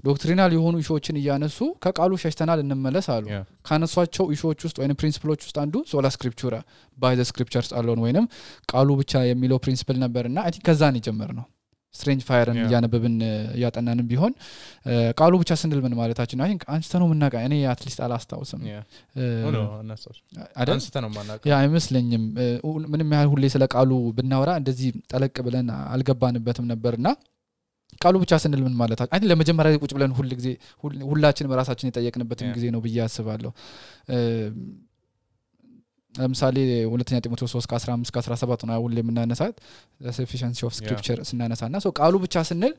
ዶክትሪናል የሆኑ ኢሹዎችን እያነሱ ከቃሉ ሸሽተናል እንመለስ አሉ ካነሷቸው ኢሹዎች ውስጥ ወይንም ፕሪንሲፕሎች ውስጥ አንዱ ሶላ ስክሪፕቹራ ባይ ዘ ስክሪፕቸርስ አሎን ወይንም ቃሉ ብቻ የሚለው ፕሪንሲፕል ነበርና አይ ቲንክ ከዛ ነው የጀመርነው ስትሬንጅ ፋየርን ያነበብን ያጠናንም ቢሆን ቃሉ ብቻ ስንል ምን ማለታችን ነው አይ ቲንክ አንስተነው ምናቃ እኔ አትሊስት አላስታውስም አንስተነው ማናቀ ያ አይመስለኝም ምንም ያህል ሁሌ ስለ ቃሉ ብናወራ እንደዚህ ጠለቅ ብለን አልገባንበትም ነበርና ቃሉ ብቻ ስንል ምን ማለታችን አይ ቲንክ ለመጀመሪያ ቁጭ ብለን ሁሉ ጊዜ ሁላችንም ራሳችን የጠየቅንበትም ጊዜ ነው ብዬ አስባለሁ ለምሳሌ ሁለተኛ ጢሞቴዎስ 3:15-17 ነው ሁሌ የምናነሳት sufficiency of scripture ስናነሳና ሶ ቃሉ ብቻ ስንል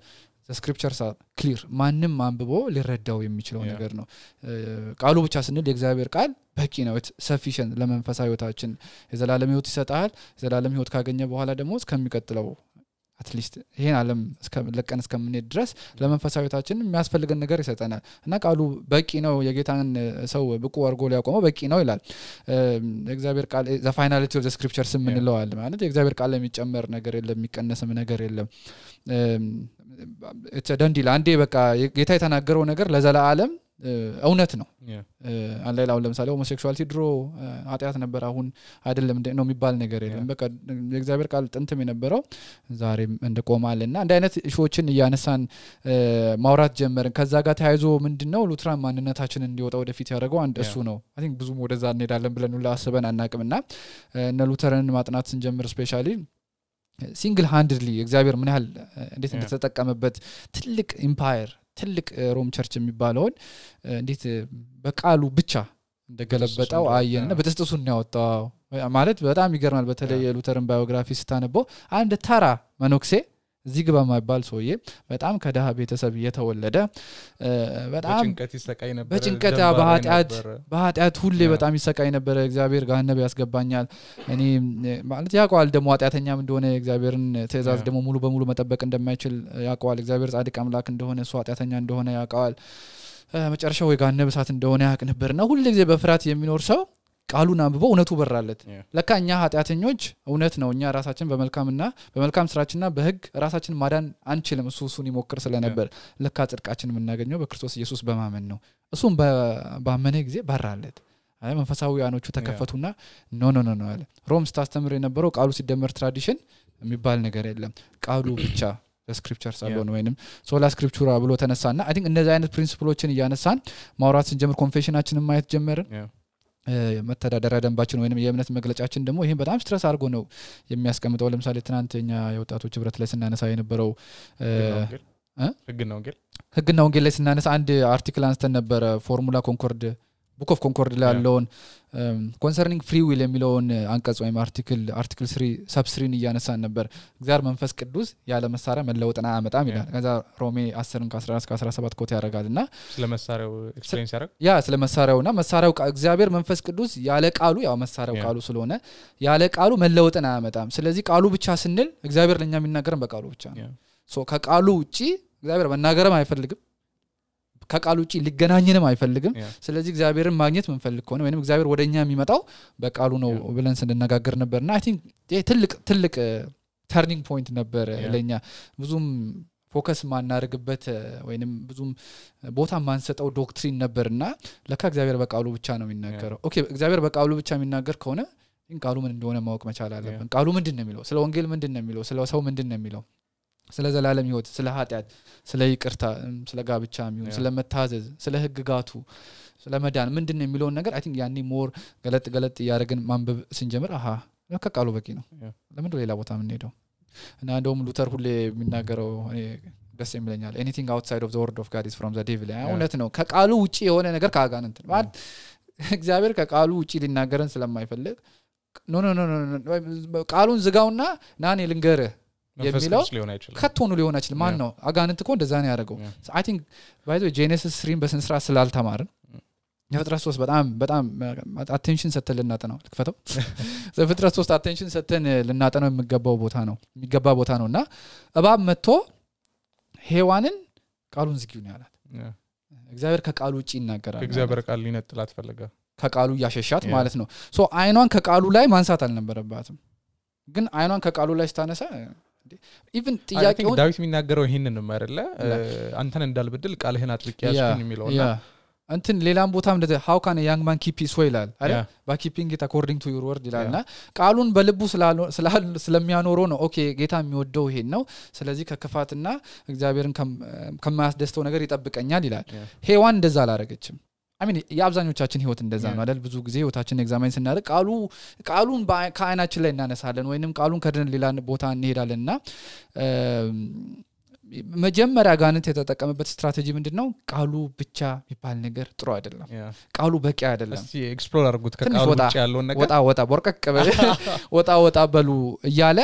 the scriptures are clear ማንንም አንብቦ ሊረዳው የሚችለው ነገር ነው ቃሉ ብቻ ስንል የእግዚአብሔር ቃል በቂ ነው sufficient ለመንፈሳዊ ህይወታችን የዘላለም ህይወት ይሰጣል የዘላለም ህይወት ካገኘ በኋላ ደግሞ እስከሚቀጥለው አትሊስት ይሄን ዓለም ለቀን እስከምንሄድ ድረስ ለመንፈሳዊታችን የሚያስፈልገን ነገር ይሰጠናል እና ቃሉ በቂ ነው የጌታን ሰው ብቁ አድርጎ ሊያቆመው በቂ ነው ይላል እግዚአብሔር ቃል the finality of the scriptures ምንለዋል ማለት የእግዚአብሔር ቃል የሚጨመር ነገር የለም የሚቀነስም ነገር የለም it's a done deal አንዴ በቃ ጌታ የተናገረው ነገር ለዘላለም እውነት ነው አላላው ለምሳሌ ሆሞሴክሹዋሊቲ ድሮ ኃጢያት ነበር አሁን አይደለም ነው የሚባል ነገር የለም በቃ የእግዚአብሔር ቃል ጥንትም የነበረው ዛሬም እንደቆማልና እንደ አይነት እሾችን ያነሳን ማውራት ጀመርን ከዛ ጋር ተያይዞ ምንድነው ሉትራን ማንነታችንን እንዲወጣ ወደፊት ያደረገው አንድ እሱ ነው አይ ቲንክ ብዙም ወደዛ እንሄዳለን ብለን ሁሉ አስበን አናቅምና እነ ሉተርን ማጥናት ስንጀምር ስፔሻሊ ሲንግል ሃንድሊ እግዚአብሔር ምን ያህል እንዴት እንደተጠቀመበት ትልቅ ኢምፓየር ትልቅ ሮም ቸርች የሚባለው እንዴት በቃሉ ብቻ እንደገለበጣው አየንና በተስተሱን ያወጣው ማለት በጣም ይገርማል በተለይ የሉተርን ባዮግራፊ ስታነበው አንድ ተራ መኖክሴ እዚህ ግባ ማይባል ሰውዬ በጣም ከደሃ ቤተሰብ የተወለደ በጣም በጭንቀት በኃጢአት ሁሌ በጣም ይሰቃይ ነበር እግዚአብሔር ገሃነም ያስገባኛል እኔ ማለት ያውቃል ደሞ ኃጢአተኛም እንደሆነ እግዚአብሔርን ትእዛዝ ደሞ ሙሉ በሙሉ መጠበቅ እንደማይችል ያውቃል እግዚአብሔር ጻድቅ አምላክ እንደሆነ እሱ ኃጢአተኛ እንደሆነ ያውቃል መጨረሻው የገሃነም እሳት እንደሆነ ያውቅ ነበርና ሁሉ ጊዜ በፍርሃት የሚኖር ሰው ቃሉን አንብቦ እውነቱ በራለት ለካኛ ኃጢአተኞች እውነት ነው እኛ ራሳችን በመልካም ስራችንና በህግ ራሳችን ማዳን አንችልም እሱን ይሞክር ስለነበር ለካ ጽድቃችን የምናገኘው በክርስቶስ ኢየሱስ በማመን ነው እሱም በአመነ ጊዜ በራለት አይ መንፈሳዊያኖቹ ተከፈቱና ኖ አለ ሮም ስታስተምር የነበረው ቃሉ ሲደመር ትራዲሽን የሚባል ነገር የለም ቃሉ ብቻ በስክሪፕቸር ሳይሆን ወይንም ሶላ ስክሪፕቹራ ብሎ ተነሳና አይ ቲንክ እነዚህ አይነት ፕሪንሲፕሎችን ያነሳን ማውራት ስንጀምር ኮንፌሽናችንን ማየት ጀመርን መተዳደሪያ ደንባችን ወይንም የእምነት መግለጫችን ደግሞ ይሄን በጣም ስትረስ አድርጎ ነው የሚያስቀምጠው ለምሳሌ ትናንተኛ የወጣቶች ህብረት ላይ ስናነሳ የነበረው ህግና ወንጌል ላይ ስናነሳ አንድ አርቲክል አንስተን ነበር ፎርሙላ ኮንኮርድ ቡክ ኦፍ ኮንኮርድ ላይ ያለውን ኮንሰርኒንግ ፍሪ ዊል የሚለውን አንቀጽ ወይም አርቲክል 3 ሰብ 3 እያነሳን ነበር እግዚአብሔር መንፈስ ቅዱስ ያለ መሳሪያ መለወጥና አመጣም ይላል ከዛ ሮሜ 10:11-17 ኮት ያደርጋልና ስለ መሳሪያው ኤክስፕሌን ያደርግ ስለ መሳሪያውና መሳሪያው እግዚአብሔር መንፈስ ቅዱስ ያለ ቃሉ ያው መሳሪያው ቃሉ ስለሆነ ያለ ቃሉ መለወጥና አመጣም ስለዚህ ቃሉ ብቻ ስንል እግዚአብሔር ለኛ የሚናገረን በቃሉ ብቻ ነው ሶ ከቃሉ ውጪ እግዚአብሔር መናገርም አይፈልግም ከቃሉ ውጪ ሊገናኘንም አይፈልግም ስለዚህ እግዚአብሔርን ማግኘት መንፈልግ ከሆነ ወይንም እግዚአብሔር ወደኛ የሚመጣው በቃሉ ነው ብለን ስንነጋገር ነበርና አይ ቲንክ ትልቅ ተርኒንግ ፖይንት ነበር ለኛ ብዙም ፎከስ ማናርግበት ወይንም ብዙም ቦታ ማንሰጠው ዶክትሪን ነበርና ለካ እግዚአብሔር በቃሉ ብቻ ነው የሚናገረው ኦኬ እግዚአብሔር በቃሉ ብቻ የሚናገር ከሆነ ቃሉ ምን እንደሆነ ማወቅ መቻል አለብን ቃሉ ምንድነው የሚለው ስለ ወንጌል ምንድነው የሚለው ስለ ሰው ምንድነው የሚለው ስለ ዘላለም ህይወት ስለ ኃጢአት ስለ ይቅርታ ስለ ጋብቻ የሚሆን ስለ መታዘዝ ስለ ህግጋቱ ስለ መዳን ምንድነው የሚለው ነገር አይ ቲንክ ያኔ ሞር ገለጥ ያደረግን ማንበብ ስንጀምር ከቃሉ በቂ ነው ለምን ሌላ ቦታ ምን ሄደው እና እንደውም ሉተር ሁሌ የሚናገረው እኔ ደስ የሚለኛል anything outside of the word of God is from the devil እውነት ነው ከቃሉ ውጪ የሆነ ነገር ካጋንንት ማለት እግዚአብሔር ከቃሉ ውጪ ሊናገረን ስለማይፈልግ ኖ ቃሉን ዝጋውና ናኔ ልንገርህ የሚለው ከቶኑ ሊሆን አይችልም ማን ነው አጋንንት እኮ እንደዛ ነው ያደረገው አይ ቲንክ ባይ ዘ ጄኔሲስ 3 በስንስራ ስላልተማርን የፍጥረት 3 በጣም አቴንሽን ሰተን ልናጠናው ልክፈተው ዘፍጥረት 3 አቴንሽን ሰተን ልናጠናው የሚገባ ቦታ ነውና እባብ መጥቶ ሔዋንን ቃሉን ዝጊው ነው ያላት እግዚአብሔር ከቃሉ ውጪ ይናገራል እግዚአብሔር ቃል ሊነጥላት ፈለገ ከቃሉ ያሸሻት ማለት ነው ሶ አይኗን ከቃሉ ላይ ማንሳት አልነበረባትም ግን አይኗን ከቃሉ ላይ ስታነሳ ኢቭን ጥያቄው ዳዊት የሚናገረው ይሄንን ነው አይደለ አንተን እንዳልበድል ቃልህን አጥልቅ ያስኩኝ የሚለውና እንትን ሌላም ቦታም እንደዚህ how can a young man keep his way ይላል አይደል by keeping it according to your word ይላልና ቃሉን በልቡ ስለሚያኖረው ነው ኦኬ ጌታ የሚወደው ይሄን ነው ስለዚህ ከክፋትና እግዚአብሔርን ከማያስደስተው ነገር ይጠብቀኛል ይላል ሔዋን እንደዛ አላረገችም I mean ያብዛኞቻችን ህይወት እንደዛ ነው አይደል ብዙ ጊዜ ህይወታችንን ኤግዛማይን ስናደርግ ቃሉን ከአይናችን ላይ እናነሳለን ወይንም ቃሉን ከደን ሌላ ቦታ እንሄዳለንና መጀመሪያ ጋንንት የተጠቀመበት ስትራቴጂ ምንድነው ቃሉ ብቻ የሚባል ነገር ጥሩ አይደለም ቃሉ በቂ አይደለም እስቲ ኤክስፕሎር አድርጉት ከቃሉ ብቻ ያለውን ነገር ወጣ ቦርቀቅ ወጣ በሉ እያለ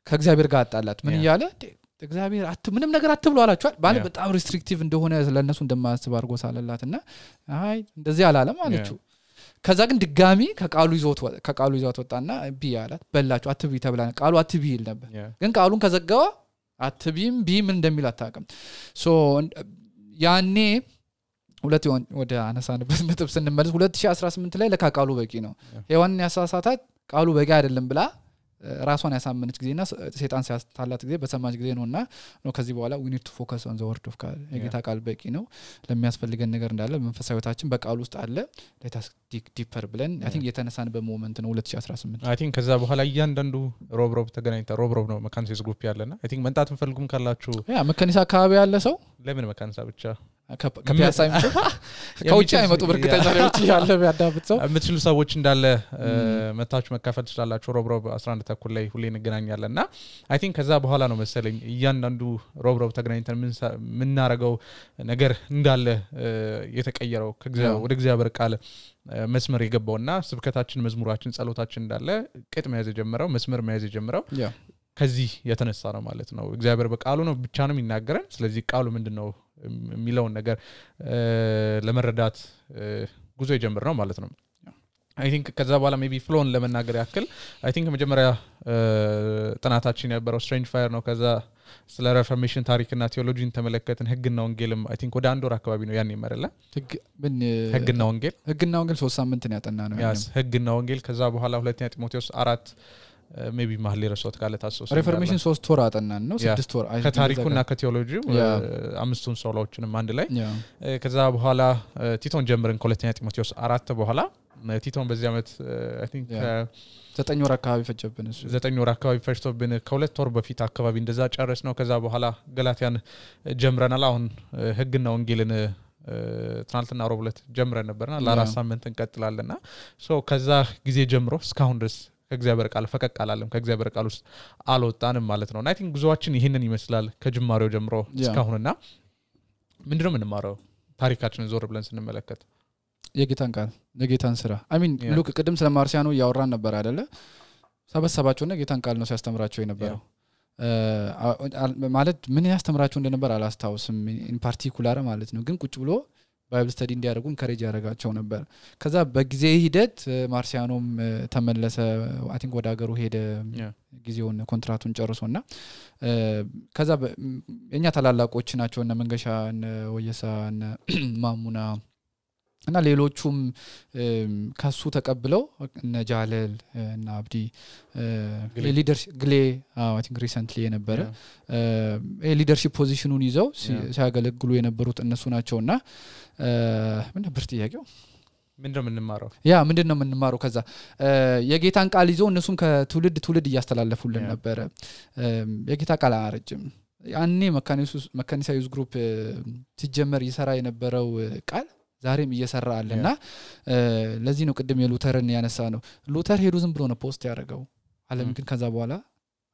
ከእግዚአብሔር ጋር አጣላት ምን እያለ እግዚአብሔር ምንም ነገር አትብሉ አላችኋል ባለ በጣም ሪስትሪክቲቭ እንደሆነ ለነሱ እንደማያስብ አድርጎ ሳለላትና አይ እንደዚህ አላለም አለችው ከዛ ግን ድጋሚ ከቃሉ ይዞት ወጣና ቢያላት በላችሁ አትቢ ተብላ ቃሉ አትቢ ይል ነበር ግን ቃሉን ከዘጋው አትቢም ምን እንደሚል አታውቅም ሶ ያኔ ሁለት ወደ አነሳንበት ነጥብ ስንመለስ 2018 ላይ ለቃሉ በቂ ነው ሔዋንን ያሳሳታት ቃሉ በቂ አይደለም ብላ ራሷን ያሳመነች ጊዜና ሰይጣን ሲያስታላት ጊዜ በሰማች ጊዜ ነውና ነው ከዚህ በኋላ we need to focus on the word of God የጌታ ቃል በቂ ነው ለሚያስፈልገን ነገር እንዳለ መንፈሳዊታችን በቃል ውስጥ አለ let us dig deeper ብለን I think የተነሳንበት ሞመንት ነው 2018 I think ከዛ በኋላ እያንዳንዱ ሮብ ተገናኝታ ሮብ ነው መካኒሳስ ግሩፕ ያለና I think መንጣት እንፈልጉም ካላችሁ ያ መካኒሳ አካባቢ ያለ ሰው ለምን መካኒሳ ብቻ ከፒያሳይም ከውጭ አይመጡ በርግጠኛ ለውጭ ያለ ቢያዳብጥ ሰው የምትችሉ ሰዎች እንዳለ መታችሁ መካፈል ትችላላችሁ ሮብ 11 ተኩል ላይ ሁሌ እንገናኛለንና I think ከዛ በኋላ ነው መሰለኝ እያንዳንዱ ሮብ ተገናኝተን ምን እናረጋው ነገር እንዳለ የተቀየረው ወደ እግዚአብሔር ቃል መስመር የገባውና ስብከታችን መዝሙራችን ጸሎታችን እንዳለ ቅጥ መያዝ የጀመረው መስመር መያዝ የጀመረው ከዚህ የተነሳ ነው ማለት ነው እግዚአብሔር በቃሉ ነው ብቻ ነው የሚናገረን ስለዚህ ቃሉ ምንድነው የሚለውን ነገር ለመረዳት ጉዞ የጀመረው ማለት ነው I think ከዛ በኋላ maybe ፍሎን ለመናገር ያክል I think መጀመሪያ ጥናታችን ያበረው ስትሬንጅ ፋየር ነው ከዛ ስለ ሪፎርሜሽን ታሪክና ቴዎሎጂን ተመለከትን ህግና ወንጌልም I think ወደ አንድ ወር አካባቢ ነው ያን ይመረለ ህግና ወንጌል 3 ሳምንት ነው ያጠና ነው ህግና ወንጌል ከዛ በኋላ ሁለተኛ ጢሞቴዎስ 4 maybe ማህሌ ረሶት ካለ ታስሶ ሪፎርሜሽን 3 ወር አጠናን ነው 6 ወር ከታሪኩና ከቴዎሎጂው አምስቱን ሶሎዎችንም አንድ ላይ ከዛ በኋላ ቲቶን ጀምረን ከሁለተኛ ጢሞቴዎስ 4 በኋላ ቲቶን በዚህ አመት I think 9 ወር አካባቢ ፈጀብን እሱ 9 ወር አካባቢ ፈጅቶብን ከሁለት ወር በፊት አካባቢ እንደዛ ጨረስ ነው ከዛ በኋላ ገላትያን ጀምረናል አሁን ህግና ወንጌልን ትናንትና ሮብ ዕለት ጀምረን ነበርና ለአራት ሳምንት እንቀጥላለንና ሶ ከዛ ጊዜ ጀምሮ እስካሁን ድረስ ከእግዚአብሔር ቃል ፈቀቅ አላለም ከእግዚአብሔር ቃል ውስጥ አልወጣንም ማለት ነው I think ጉዞአችን ይሄንን ይመስላል ከጅማሬው ጀምሮ እስካሁንና ምንድነው የምንማረው ታሪካችንን ዞር ብለን ስንመለከት የጌታን ቃል የጌታን ስራ I mean ሉክ ቅድም ስለ ማርሲያኖ ያወራን ነበር አይደለ ሰበሰባቸውና ጌታን ቃል ነው ሲያስተምራቸው የነበረው ማለት ምን ያስተምራቸው እንደነበር አላስታውስም ኢን ፓርቲኩላር ማለት ነው ግን ቁጭ ብሎ ባይብል ስተዲ እንዲያደርጉ ኢንካሬጅ ያደርጋቸው ነበር ከዛ በጊዜ ሂደት ማርሲያኖም ተመለሰ I think ወደ ሀገሩ ሄደ ጊዜውን ኮንትራቱን ጨርሶና ከዛ የኛ ታላላቆች ናቸው እና መንገሻ እና ወየሳ እና ማሙና እና ሌሎቹም ካሱ ተቀብለው እና ጃለል እና አብዲ ሊደርሺፕ ግሌ I think recently የነበረ ሊደርሺፕ ፖዚሽኑን ይዘው ሲያገለግሉ የነበሩት እነሱ ናቸውና ምን ነበር ጥያቄው ምንድነው የምንማረው ምንድነው የምንማረው ከዛ የጌታን ቃል ይዘው እነሱም ከትውልድ እያስተላለፉልን ነበር የጌታ ቃል አረጅም ያኔ መካኒሳ ዩዝ ግሩፕ ሲጀመር ይሰራ የነበረው ቃል ዛሬም እየሰራ አለና ለዚህ ነው ቅድም የሉተርን ያነሳ ነው ሉተር ሄዱ ዝም ብሎ ነው ፖስት ያደረገው ዓለም ግን ከዛ በኋላ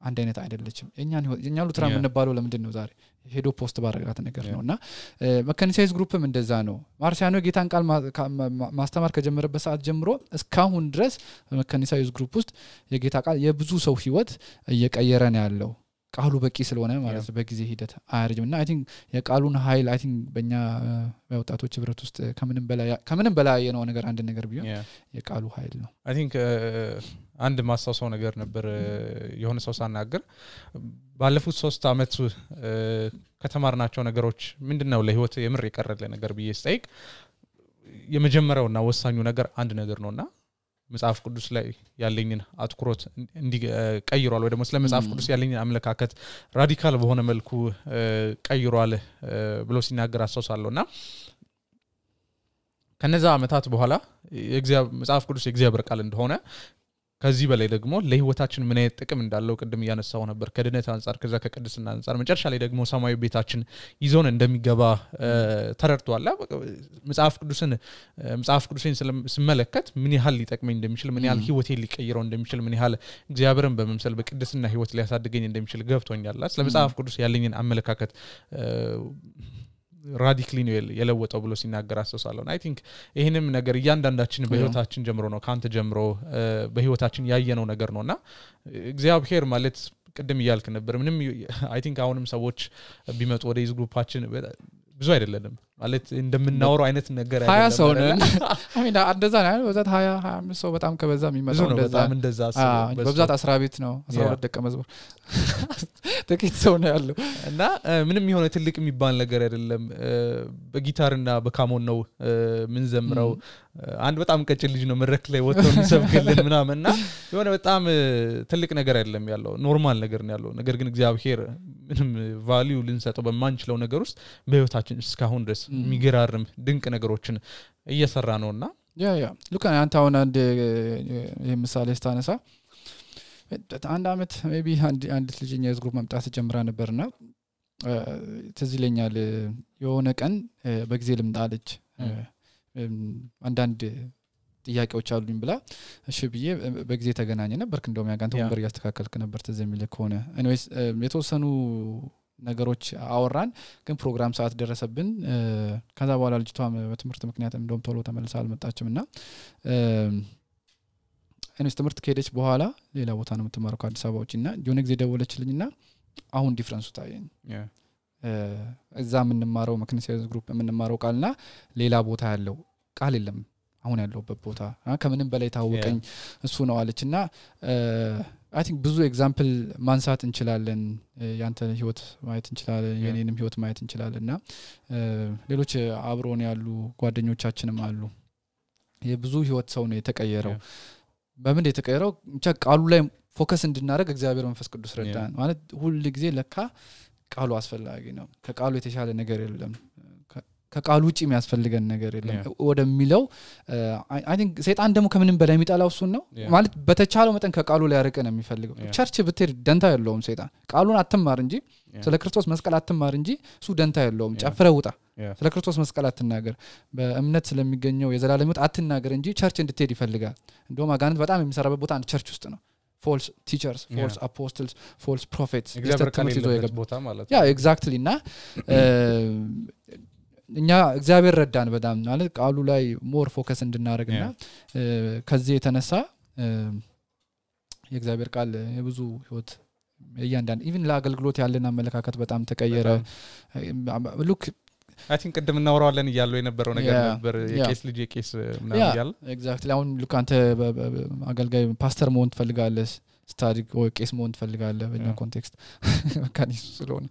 አንድ አይነት አይደለችም የኛ ሉተራ ምንባለው ለምንድነው ዛሬ ሄዶ ፖስት ባረጋት ነገር ነውና መካኒሳይዝ ግሩፕም እንደዛ ነው ማርሲያኖ ጌታን ቃል ማስተማር ከጀመረበት ሰዓት ጀምሮ እስካሁን ድረስ መካኒሳይዝ ግሩፕ ውስጥ የጌታ ቃል የብዙ ሰው ህይወት እየቀየረ ነው ያለው ቃሉ በቂ ስለሆነ ማለት በጊዜ ሂደት አያርጅምና I think የቃሉን ኃይል I think በእኛ ወጣቶች ህብረት ውስጥ ከምንም በላይ የሆነ ነገር አንድ ነገር ቢሆን የቃሉ ኃይል ነው I think አንድ ማሳሰው ነገር ነበር የሆነ ሰው ሳናገር ባለፉት 3 አመት ከተማርናቸው ነገሮች ምንድነው ለህይወት የምር የቀረለ ነገር በየስጠይቅ የመጀመሪያውና ወሳኙ ነገር አንድ ነገር ነውና መጽሐፍ ቅዱስ ላይ ያለኝን አትኩሮት እንዲቀይሯል ወይ ደግሞ ስለ መጽሐፍ ቅዱስ ያለኝን አመለካከት ራዲካል በሆነ መልኩ ቀይሯል ብሎ ሲናገር አስተውሳለሁና ከነዛ አመታት በኋላ መጽሐፍ ቅዱስ የእግዚአብሔር ቃል እንደሆነ ከዚህ በላይ ደግሞ ለህይወታችን ምን አይነት ጥቅም እንዳለው ቅድም ያነሳው ነበር ከድነት አንፃር ከዛ ከቅድስና አንፃር መጨረሻ ላይ ደግሞ ሰማያዊ ቤታችን ይዞን እንደሚገባ ተረድቷል መጽሐፍ ቅዱስን ስመለከት ምን ያህል ሊጠቅመኝ እንደሚችል ምን ያህል ህይወቴን ሊቀይረው እንደሚችል ምን ያህል እግዚአብሔርን በመምሰል በቅድስና ህይወት ሊያሳድገኝ እንደሚችል ገብቶኛል ስለ መጽሐፍ ቅዱስ ያለኝን አመለካከት ራዲካሊ ነው የለወጠው ብሎ ሲናገር አስተውሳለሁ I think ይሄንም ነገር እያንዳንዳችን በህይወታችን ጀምሮ ነው ካንተ ጀምሮ በህይወታችን ያየነው ነገር ነውና እግዚአብሔር ማለት ቅድም ይያልክ ነበር ምንም I think አሁንም ሰዎች ቢመጡ ወደ ግሩፓችን ብዙ አይደለም ማለት እንደምናወራው አይነት ነገር 20 ሰው ነን አሚና እንደዛ ነው በዛት 20 25 ሰው በጣም ከበዛ የሚመጣው እንደዛ አስበው በብዛት 10 ቤት ነው 12 ደቀ መዝሙር ጥቂት ሰው ነው ያለው እና ምንም የሆነ ትልቅ የሚባል ነገር አይደለም በጊታርና በካሞን ነው ምን ዘምረው አንድ በጣም ቀጭን ልጅ ነው መድረክ ላይ ወጥቶ የሚሰብክልን ምናምንና የሆነ በጣም ትልቅ ነገር አይደለም ያለው ኖርማል ነገር ነው ያለው ነገር ግን እግዚአብሔር ምንም ቫልዩ ልንሰጠው በማንችለው ነገር ውስጥ በህይወታችን እስካሁን ድረስ የሚገራርም ድንቅ ነገሮችን እየሰራ ነውና ያ ሉካ አንተ አሁን አንድ የምሳሌ ስታነሳ አንድ አመት ሜቢ አንድ ልጅኛ የዝግሩፕ መምጣት ጀምራ ነበርና ትዝ ይለኛል የሆነ ቀን በጊዜ ልምጣለች አንዳንድ ጥያቄዎች አሉኝ ብላ እሺ ብዬ በጊዜ ተገናኘ ነበር እንደውም ያጋንተ ወንበር ያስተካከልክ ነበር ትዝ የሚል ከሆነ ኤኒዌይስ የተወሰኑ ነገሮች አወራን ግን ፕሮግራም ሰዓት ደረሰብን ከዛ በኋላ ልጅቷ በትምህርት ምክንያት እንደውም ቶሎ ተመልሳ አልመጣችምና እኔስ ትምህርት ከሄደች በኋላ ሌላ ቦታ ነው የምትማረው ከአዲስ አበባ ውጪና የሆነ ጊዜ ደወለችልኝና አሁን ዲፈረንሱ ታየኝ እዛ የምንማረው መክኒሲያስ ግሩፕ የምንማረው ቃልና ሌላ ቦታ ያለው ቃል የለም አሁን ያለውበት ቦታ ከምንም በላይ ታወቀኝ እሱ ነው አለችና አይ ቲንክ ብዙ ኤግዛምፕል ማንሳት እንችላለን ያንተ ህይወት ማየት እንችላለን የኔንም ህይወት ማየት እንችላለንና ሌሎች አብሮን ያሉ ጓደኞቻችንም አሉ የብዙ ህይወት ሰው ነው የተቀየረው በምን የተቀየረው ብቻ ቃሉ ላይ ፎከስ እንድናደርግ እግዚአብሔር መንፈስ ቅዱስ ረዳን ማለት ሁሉ ጊዜ ለካ ቃሉ አስፈላጊ ነው ከቃሉ የተሻለ ነገር የለም ከቃሉ ውጪ የሚያስፈልገን ነገር የለም ወደሚለው አይ ቲንክ ሰይጣን ደግሞ ከምንም በላይ የሚጣላው እሱ ነው ማለት በተቻለው መጠን ከቃሉ ላይ ያርቀን የሚፈልገው ቸርች ብትሄድ ደንታ የለውም ሰይጣን ቃሉን አትማር እንጂ ስለ ክርስቶስ መስቀል አትማር እንጂ እሱ ደንታ የለውም ጨፍረህ ውጣ ስለ ክርስቶስ መስቀል አትናገር በእምነት ስለሚገኘው የዘላለም ሕይወት አትናገር እንጂ ቸርች እንድትሄድ ይፈልጋል እንደውም አጋንንት በጣም የሚሰራበት ቦታ አንድ ቸርች ውስጥ ነው false teachers false apostles false prophets ያ exactly እና እኛ እግዚአብሔር ረዳን በጣም ማለት ቃሉ ላይ ሞር ፎከስ እንድናደርግና ከዚህ የተነሳ የእግዚአብሔር ቃል የብዙ ህይወት ያንዳን ኢቭን ለአገልግሎት ያለና አመለካከት በጣም ተቀየረ ሉክ አይ ቲንክ ቀደም እናወራለን ይያለው የነበረው ነገር ነበር የቄስ ልጅ የቄስ ምናምን ይያል ኤግዛክትሊ አሁን ሉክ አንተ አገልጋይ ፓስተር መሆን ትፈልጋለህ ስታዲክ ወይ ቄስ መሆን ትፈልጋለህ በእኛ ኮንቴክስት ካኒስ ስለሆነ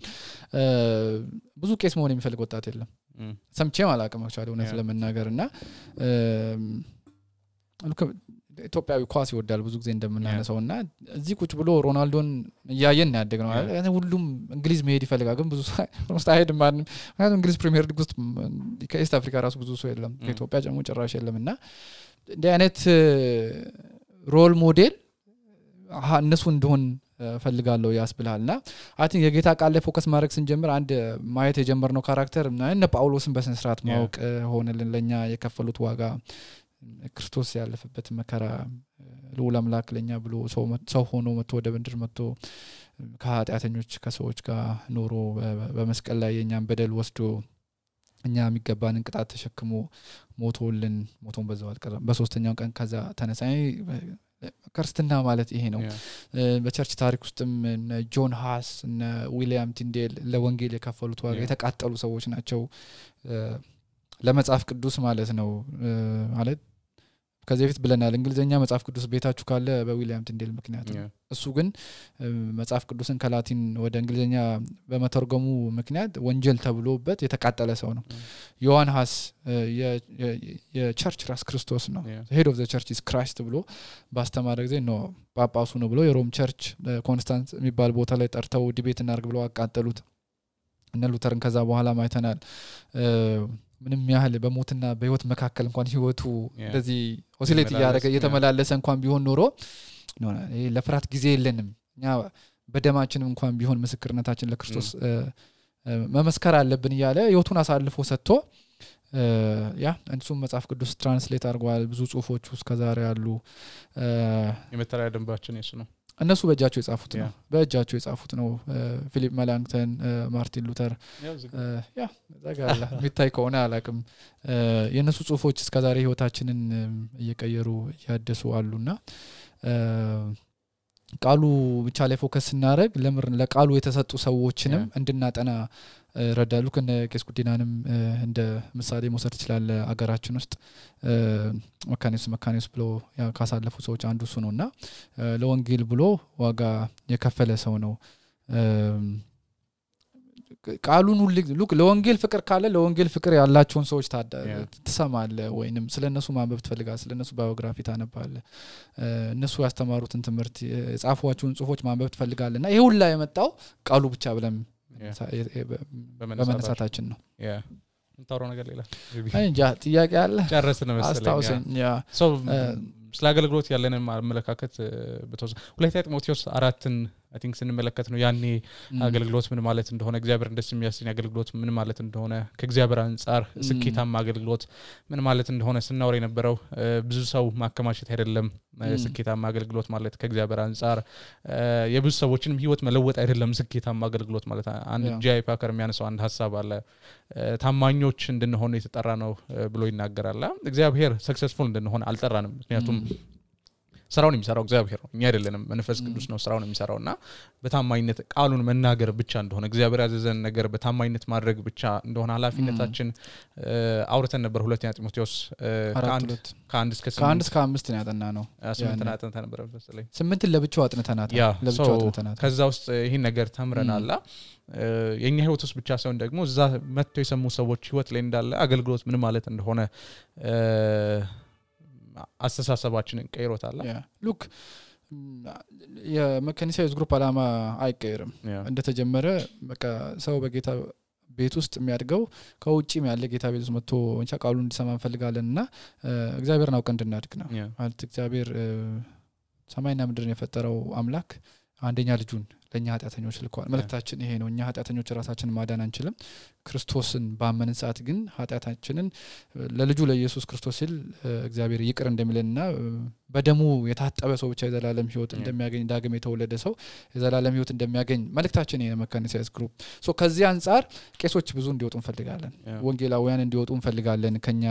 ብዙ ቄስ መሆን የሚፈልግ ወጣት የለም ሰምቼም አላውቅም አክቹዋሊ እውነት ለመናገርና ሉክ ኢትዮጵያዊ ኳስ ይወዳል ብዙ ጊዜ እንደምናነሳውና እዚህ ቁጭ ብሎ ሮናልዶን ያያየን ያደግነው አይደል ሁሉም እንግሊዝ መሄድ ይፈልጋል ግን ብዙ ስታይድ ማን እንግሊዝ ፕሪሚየር ሊግ ውስጥ ከኢስት አፍሪካ ራሱ ብዙ ሰው የለም ከኢትዮጵያ ጀምሮ ጭራሽ የለምና እንደ አይነት ሮል ሞዴል እነሱ እንደሆን ፈልጋለሁ ያስብላልና አይ ቲንክ የጌታ ቃል ላይ ፎከስ ማድረግ ስንጀምር አንድ ማየት የጀመርነው ካራክተር እና ጳውሎስን በስነ ስርዓት ማወቅ ሆነልን ለኛ የከፈሉት ዋጋ ክርስቶስ ያለፈበት መከራ ለሁሉ አምላክ ለኛ ብሎ ሰው ሆኖ መጥቶ ወደ ምድር መጥቶ ከኃጢአተኞች ከሰዎች ጋር ኖሮ በመስቀል ላይ የኛን በደል ወስዶ እኛ የሚገባንን ቅጣት ተሸክሞ ሞቶን በዛው አልቀረም በሶስተኛው ቀን ከዛ ተነሳይ ክርስትና ማለት ይሄ ነው በቸርች ታሪክ ውስጥም ጆን ሃስ እና ዊሊያም ቲንዴል ለወንጌል የከፈሉት ዋጋ የተቃጠሉ ሰዎች ናቸው ለመጽሐፍ ቅዱስ ማለት ነው ማለት ከዚህ በፊት ብለናል እንግሊዘኛ መጽሐፍ ቅዱስ ቤታችሁ ካለ በዊሊያም ቲንዴል ምክንያት እሱ ግን መጽሐፍ ቅዱስን ከላቲን ወደ እንግሊዘኛ በመተርጎሙ ምክንያት ወንጀል ተብሎበት የተቃጠለ ሰው ነው ዮሐን ሃስ የቸርች ራስ ክርስቶስ ነው head of the church is Christ ብሎ ባስተማረ ጊዜ ነው ጳጳሱ ነው ብሎ የሮም ቸርች ኮንስታንስ የሚባል ቦታ ላይ ጠርተው ዲቤት እናርግ ብለው አቃጠሉት እነ ሉተርን ከዛ በኋላ ማይተናል ምንም ያህል በሞትና በህይወት መካከል እንኳን ህይወቱ እንደዚህ ኦሲሌት ያደረገ የተመላለሰ እንኳን ቢሆን ኖሮ ለፍራት ጊዜ የለንም እኛ በደማችንም እንኳን ቢሆን ምስክርነታችን ለክርስቶስ መመስከር አለብን ይያለ ህይወቱን አሳልፎ ሰጥቶ ያ እንሱም መጽሐፍ ቅዱስ ትራንስሌት አድርጓል ብዙ ጽሁፎች ውስጥ ከዛሬ ያሉ የመተሪያ ደንባችን እሱ ነው እነሱ በእጃቸው የጻፉት ነው ፊሊፕ መላንክተን ማርቲን ሉተር ያ ዘጋላ ሚታይ ከሆነ አላቅም የነሱ ጽሁፎች እስከዛሬ ህይወታችንን እየቀየሩ ያደሱ አሉና ቃሉ ብቻ ላይ ፎከስ እናደርግ ለቃሉ የተሰጡ ሰዎችንም እንድናጠና ረዳሉ ከነቄስ ጉዲናንም እንደ ምሳሌ መውሰድ ይችላል አገራችን ውስጥ መካኒስ ብሎ ካሳለፉ ሰዎች አንዱ እሱ ነውና ለወንጌል ብሎ ዋጋ የከፈለ ሰው ነው ቃሉን ሁሉ ለወንጌል ፍቅር ካለ ለወንጌል ፍቅር ያላቸውን ሰዎች ተሰማለ ወይንም ስለነሱ ማንበብ ትፈልጋለህ ስለነሱ ባዮግራፊ ታነባለህ እነሱ ያስተማሩትን ትምህርት የጻፏቸውን ጽሁፎች ማንበብ ትፈልጋለህና ይሄ ሁሉ የመጣው ቃሉ ብቻ ብለን በመነሳታችን ነው እንታውራው ነገር ሌላ እንጃ ጥያቄ አለ ጨረስን መሰለኝ አስታውሰኝ ሶ ስለ አገልግሎት ያለንን አመለካከት በተወሰነ ሁለተኛ ጢሞቴዎስ 4ን I think ስንመለከት ነው ያኔ አገልግሎት ምን ማለት እንደሆነ እግዚአብሔር እንደስ የሚያስኝ አገልግሎት ምን ማለት እንደሆነ ከእግዚአብሔር አንፃር ስኬታማ አገልግሎት ምን ማለት እንደሆነ ስናወራ የነበረው ብዙ ሰው ማከማቸት አይደለም ስኬታማ አገልግሎት ማለት ከእግዚአብሔር አንፃር የብዙ ሰዎችንም ህይወት መለወጥ አይደለም ስኬታማ አገልግሎት ማለት አንድ ጂአይ ፓከር የሚያነሳው አንድ ሐሳብ አለ ታማኞች እንድንሆን የተጠራ ነው ብሎ ይናገራል እግዚአብሔር ሰክሰስፉል እንድንሆን አልጠራንም ምክንያቱም ስራውን የሚሰራው እግዚአብሔር ነው እኛ አይደለንም መንፈስ ቅዱስ ነው ስራውን የሚሰራውና በታማኝነት ቃሉን መናገር ብቻ እንደሆነ እግዚአብሔር ያዘዘን ነገር በታማኝነት ማድረግ ብቻ እንደሆነ ኃላፊነታችን አውርተን ነበር ሁለተኛ ጢሞቴዎስ ከአንድ እስከ 5 ነው ያጠና ነው 8 አጥንተን ነበር መሰለኝ 8 ለብቻው አጥንተናል ለብቻው አጥንተናል ከዛ ውስጥ ይሄን ነገር ተምረናል የኛ ህይወት ውስጥ ብቻ ሳይሆን ደግሞ እዛ መጥተው የሰሙ ሰዎች ህይወት ላይ እንዳለ አገልግሎት ምን ማለት እንደሆነ አስተሳሰባችንን ቀይሮታል ሉክ የመካኒሳይዝ ግሩፕ አላማ አይቀየርም እንደተጀመረ በቃ ሰው በጌታ ቤት ውስጥ የሚያድገው ከውጪም ያለ ጌታ ቤት ውስጥ መጥቶ እንቻ ቃሉን እንዲሰማ እንፈልጋለንና እግዚአብሔርን አውቀን እንድናድግ ነው ማለት እግዚአብሔር ሰማይና ምድርን የፈጠረው አምላክ አንደኛ ልጁን ለኛ ኃጢአተኞች ልኳል መልእክታችን ይሄ ነው እኛ ኃጢአተኞች ራሳችንን ማዳን አንችልም ክርስቶስን ባመንን ሰዓት ግን ኃጢአታችንን ለልጁ ለኢየሱስ ክርስቶስ ሲል እግዚአብሔር ይቅር እንደሚለንና በደሙ የታጠበ ሰው ብቻ የዘላለም ህይወት እንደሚያገኝ ዳግም የተወለደ ሰው የዘላለም ህይወት እንደሚያገኝ መልእክታችን ይሄ መካኒሳይዝ ግሩፕ ሶ ከዚህ አንፃር ቄሶች ብዙ እንዲወጡ እንፈልጋለን ወንጌላውያን እንዲወጡ እንፈልጋለን ከኛ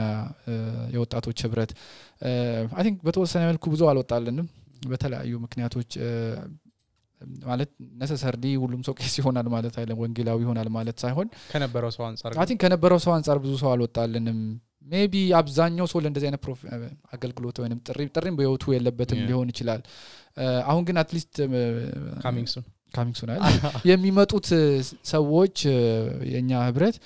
የወጣቶች ህብረት አይ ቲንክ በተወሰነ መልኩ ብዙ አልወጣልንም በተለያዩ ምክንያቶች ማለት necessarily ሁሉም ሰው ቄስ ይሆናል ማለት አይደለም ወንጌላዊ ይሆናል ማለት ሳይሆን ከነበረው ሰው አንፃር I think ከነበረው ሰው አንፃር ብዙ ሰው አልወጣልንም maybe አብዛኛው ሰው ለእንደዚህ አይነት አገልግሎት ወይንም ጥሪም በህይወቱ የለበትም ሊሆን ይችላል አሁን ግን at least coming soon የሚመጡት ሰዎች የኛ ህብረት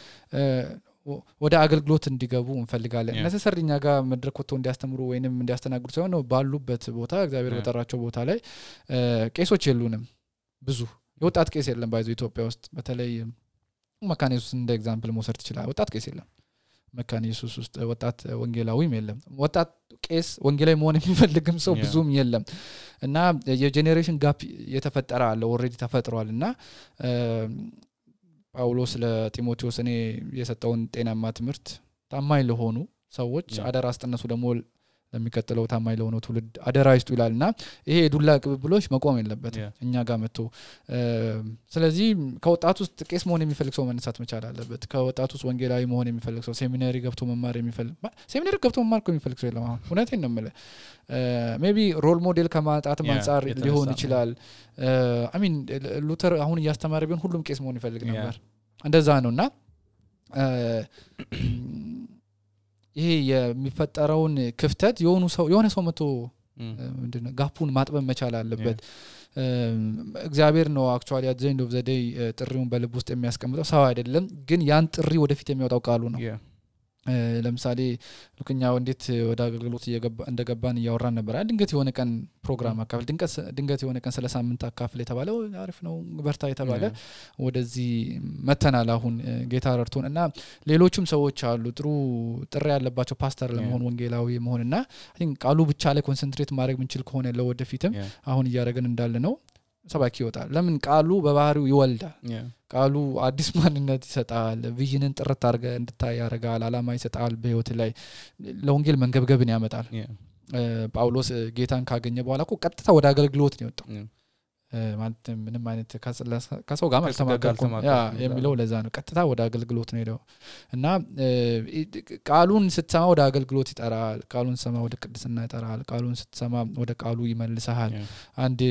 ወደ አገልግሎት እንዲገቡ እንፈልጋለን necessarily ኛ ጋር መድረክ ወጥተው እንዲያስተምሩ ወይንም እንዲያስተናግዱ ሳይሆን ባሉበት ቦታ እግዚአብሔር በጠራቸው ቦታ ላይ ቄሶች የሉንም ብዙ የወጣት ቄስ የለም ባይዞ ኢትዮጵያ ውስጥ በተለይ መካነ ኢየሱስ እንደ ኤግዛምፕል መውሰድ ይችላል ወጣት ቄስ የለም መካነ ኢየሱስ ውስጥ ወጣት ወንጌላዊም የለም ወጣት ቄስ ወንጌላዊ መሆን የሚፈልግም ሰው ብዙም የለም እና የጄኔሬሽን ጋፕ የተፈጠረ አለ ኦሬዲ ተፈጥሯልና ጳውሎስ ለጢሞቴዎስ እኔ የሰጠውን ጤናማ ትምህርት ታማኝ ለሆኑ ሰዎች አደራ አስጠነሱ ደግሞ ለሚከተለው ታማኝ ለሆኑ ትውልድ አደራ ይስጡ ይላልና ይሄ ዱላ ቅብብሎች መቆም የለበትም እኛ ጋር መጥቶ ስለዚህ ከወጣቱ ውስጥ ቄስ መሆን የሚፈልግ ሰው መነሳት መቻል አለበት ከወጣቱ ውስጥ ወንጌላዊ መሆን የሚፈልግ ሰው ሴሚናሪ ገብቶ መማር የሚፈልግ ሰው የለም አሁን እውነቴን ነው የምልህ maybe ሮል ሞዴል ከማጣት አንፃር ሊሆን ይችላል I mean ሉተር አሁን እያስተማረ ቢሆን ሁሉም ቄስ መሆን ይፈልግ ነበር እንደዛ ነውና ይሄ የሚፈጠረውን ክፍተት የሆነ ሰው መጥቶ ምንድነው ጋፑን ማጥበብ መቻል አለበት እግዚአብሔር ነው actually at the end of the day ጥሪውን በልብ ውስጥ የሚያስቀምጠው ሰው አይደለም ግን ያን ጥሪ ወደፊት የሚያወጣው ቃሉ ነው ለምሳሌ ልክኛው እንዴት ወደ አገልግሎት እንደገባን ያወራን ነበር ድንገት የሆነ ቀን ፕሮግራም አካፍል ድንገት የሆነ ቀን ስለ ሳምንት አካፍል የተባለው አሪፍ ነው በርታ የተባለ ወደዚህ መተናል አሁን ጌታ ረድቶን እና ሌሎችም ሰዎች አሉ ጥሩ ጥሪ ያለባቸው ፓስተር ለመሆን ወንጌላዊ መሆንና አይ ቲንክ ቃሉ ብቻ ላይ ኮንሰንትሬት ማድረግ ምንችል ከሆነ ለወደፊትም አሁን እያደረግን እንዳለ ነው ሰባኪ ይወጣል ለምን ቃሉ በባህሪው ይወልዳል ቃሉ አዲስ ማንነት ይሰጣል ቪዥንን ጥርት አድርገ እንድታይ ያረጋል አላማ ይሰጣል በህይወት ላይ ለወንጌል መንገብገብን ያመጣል ጳውሎስ ጌታን ካገኘ በኋላ እኮ ቀጥታ ወደ አገልግሎት ነው የወጣው ማለት ምንም አይነት ከሰው ጋር ማልተማከርኩም የሚለው ለዛ ነው ቀጥታ ወደ አገልግሎት ነው ሄደው እና ቃሉን ስትሰማ ወደ አገልግሎት ይጠራል ቃሉን ስትሰማ ወደ ቅድስና ይጠራል ቃሉን ስትሰማ ወደ ቃሉ ይመልሳል አንድ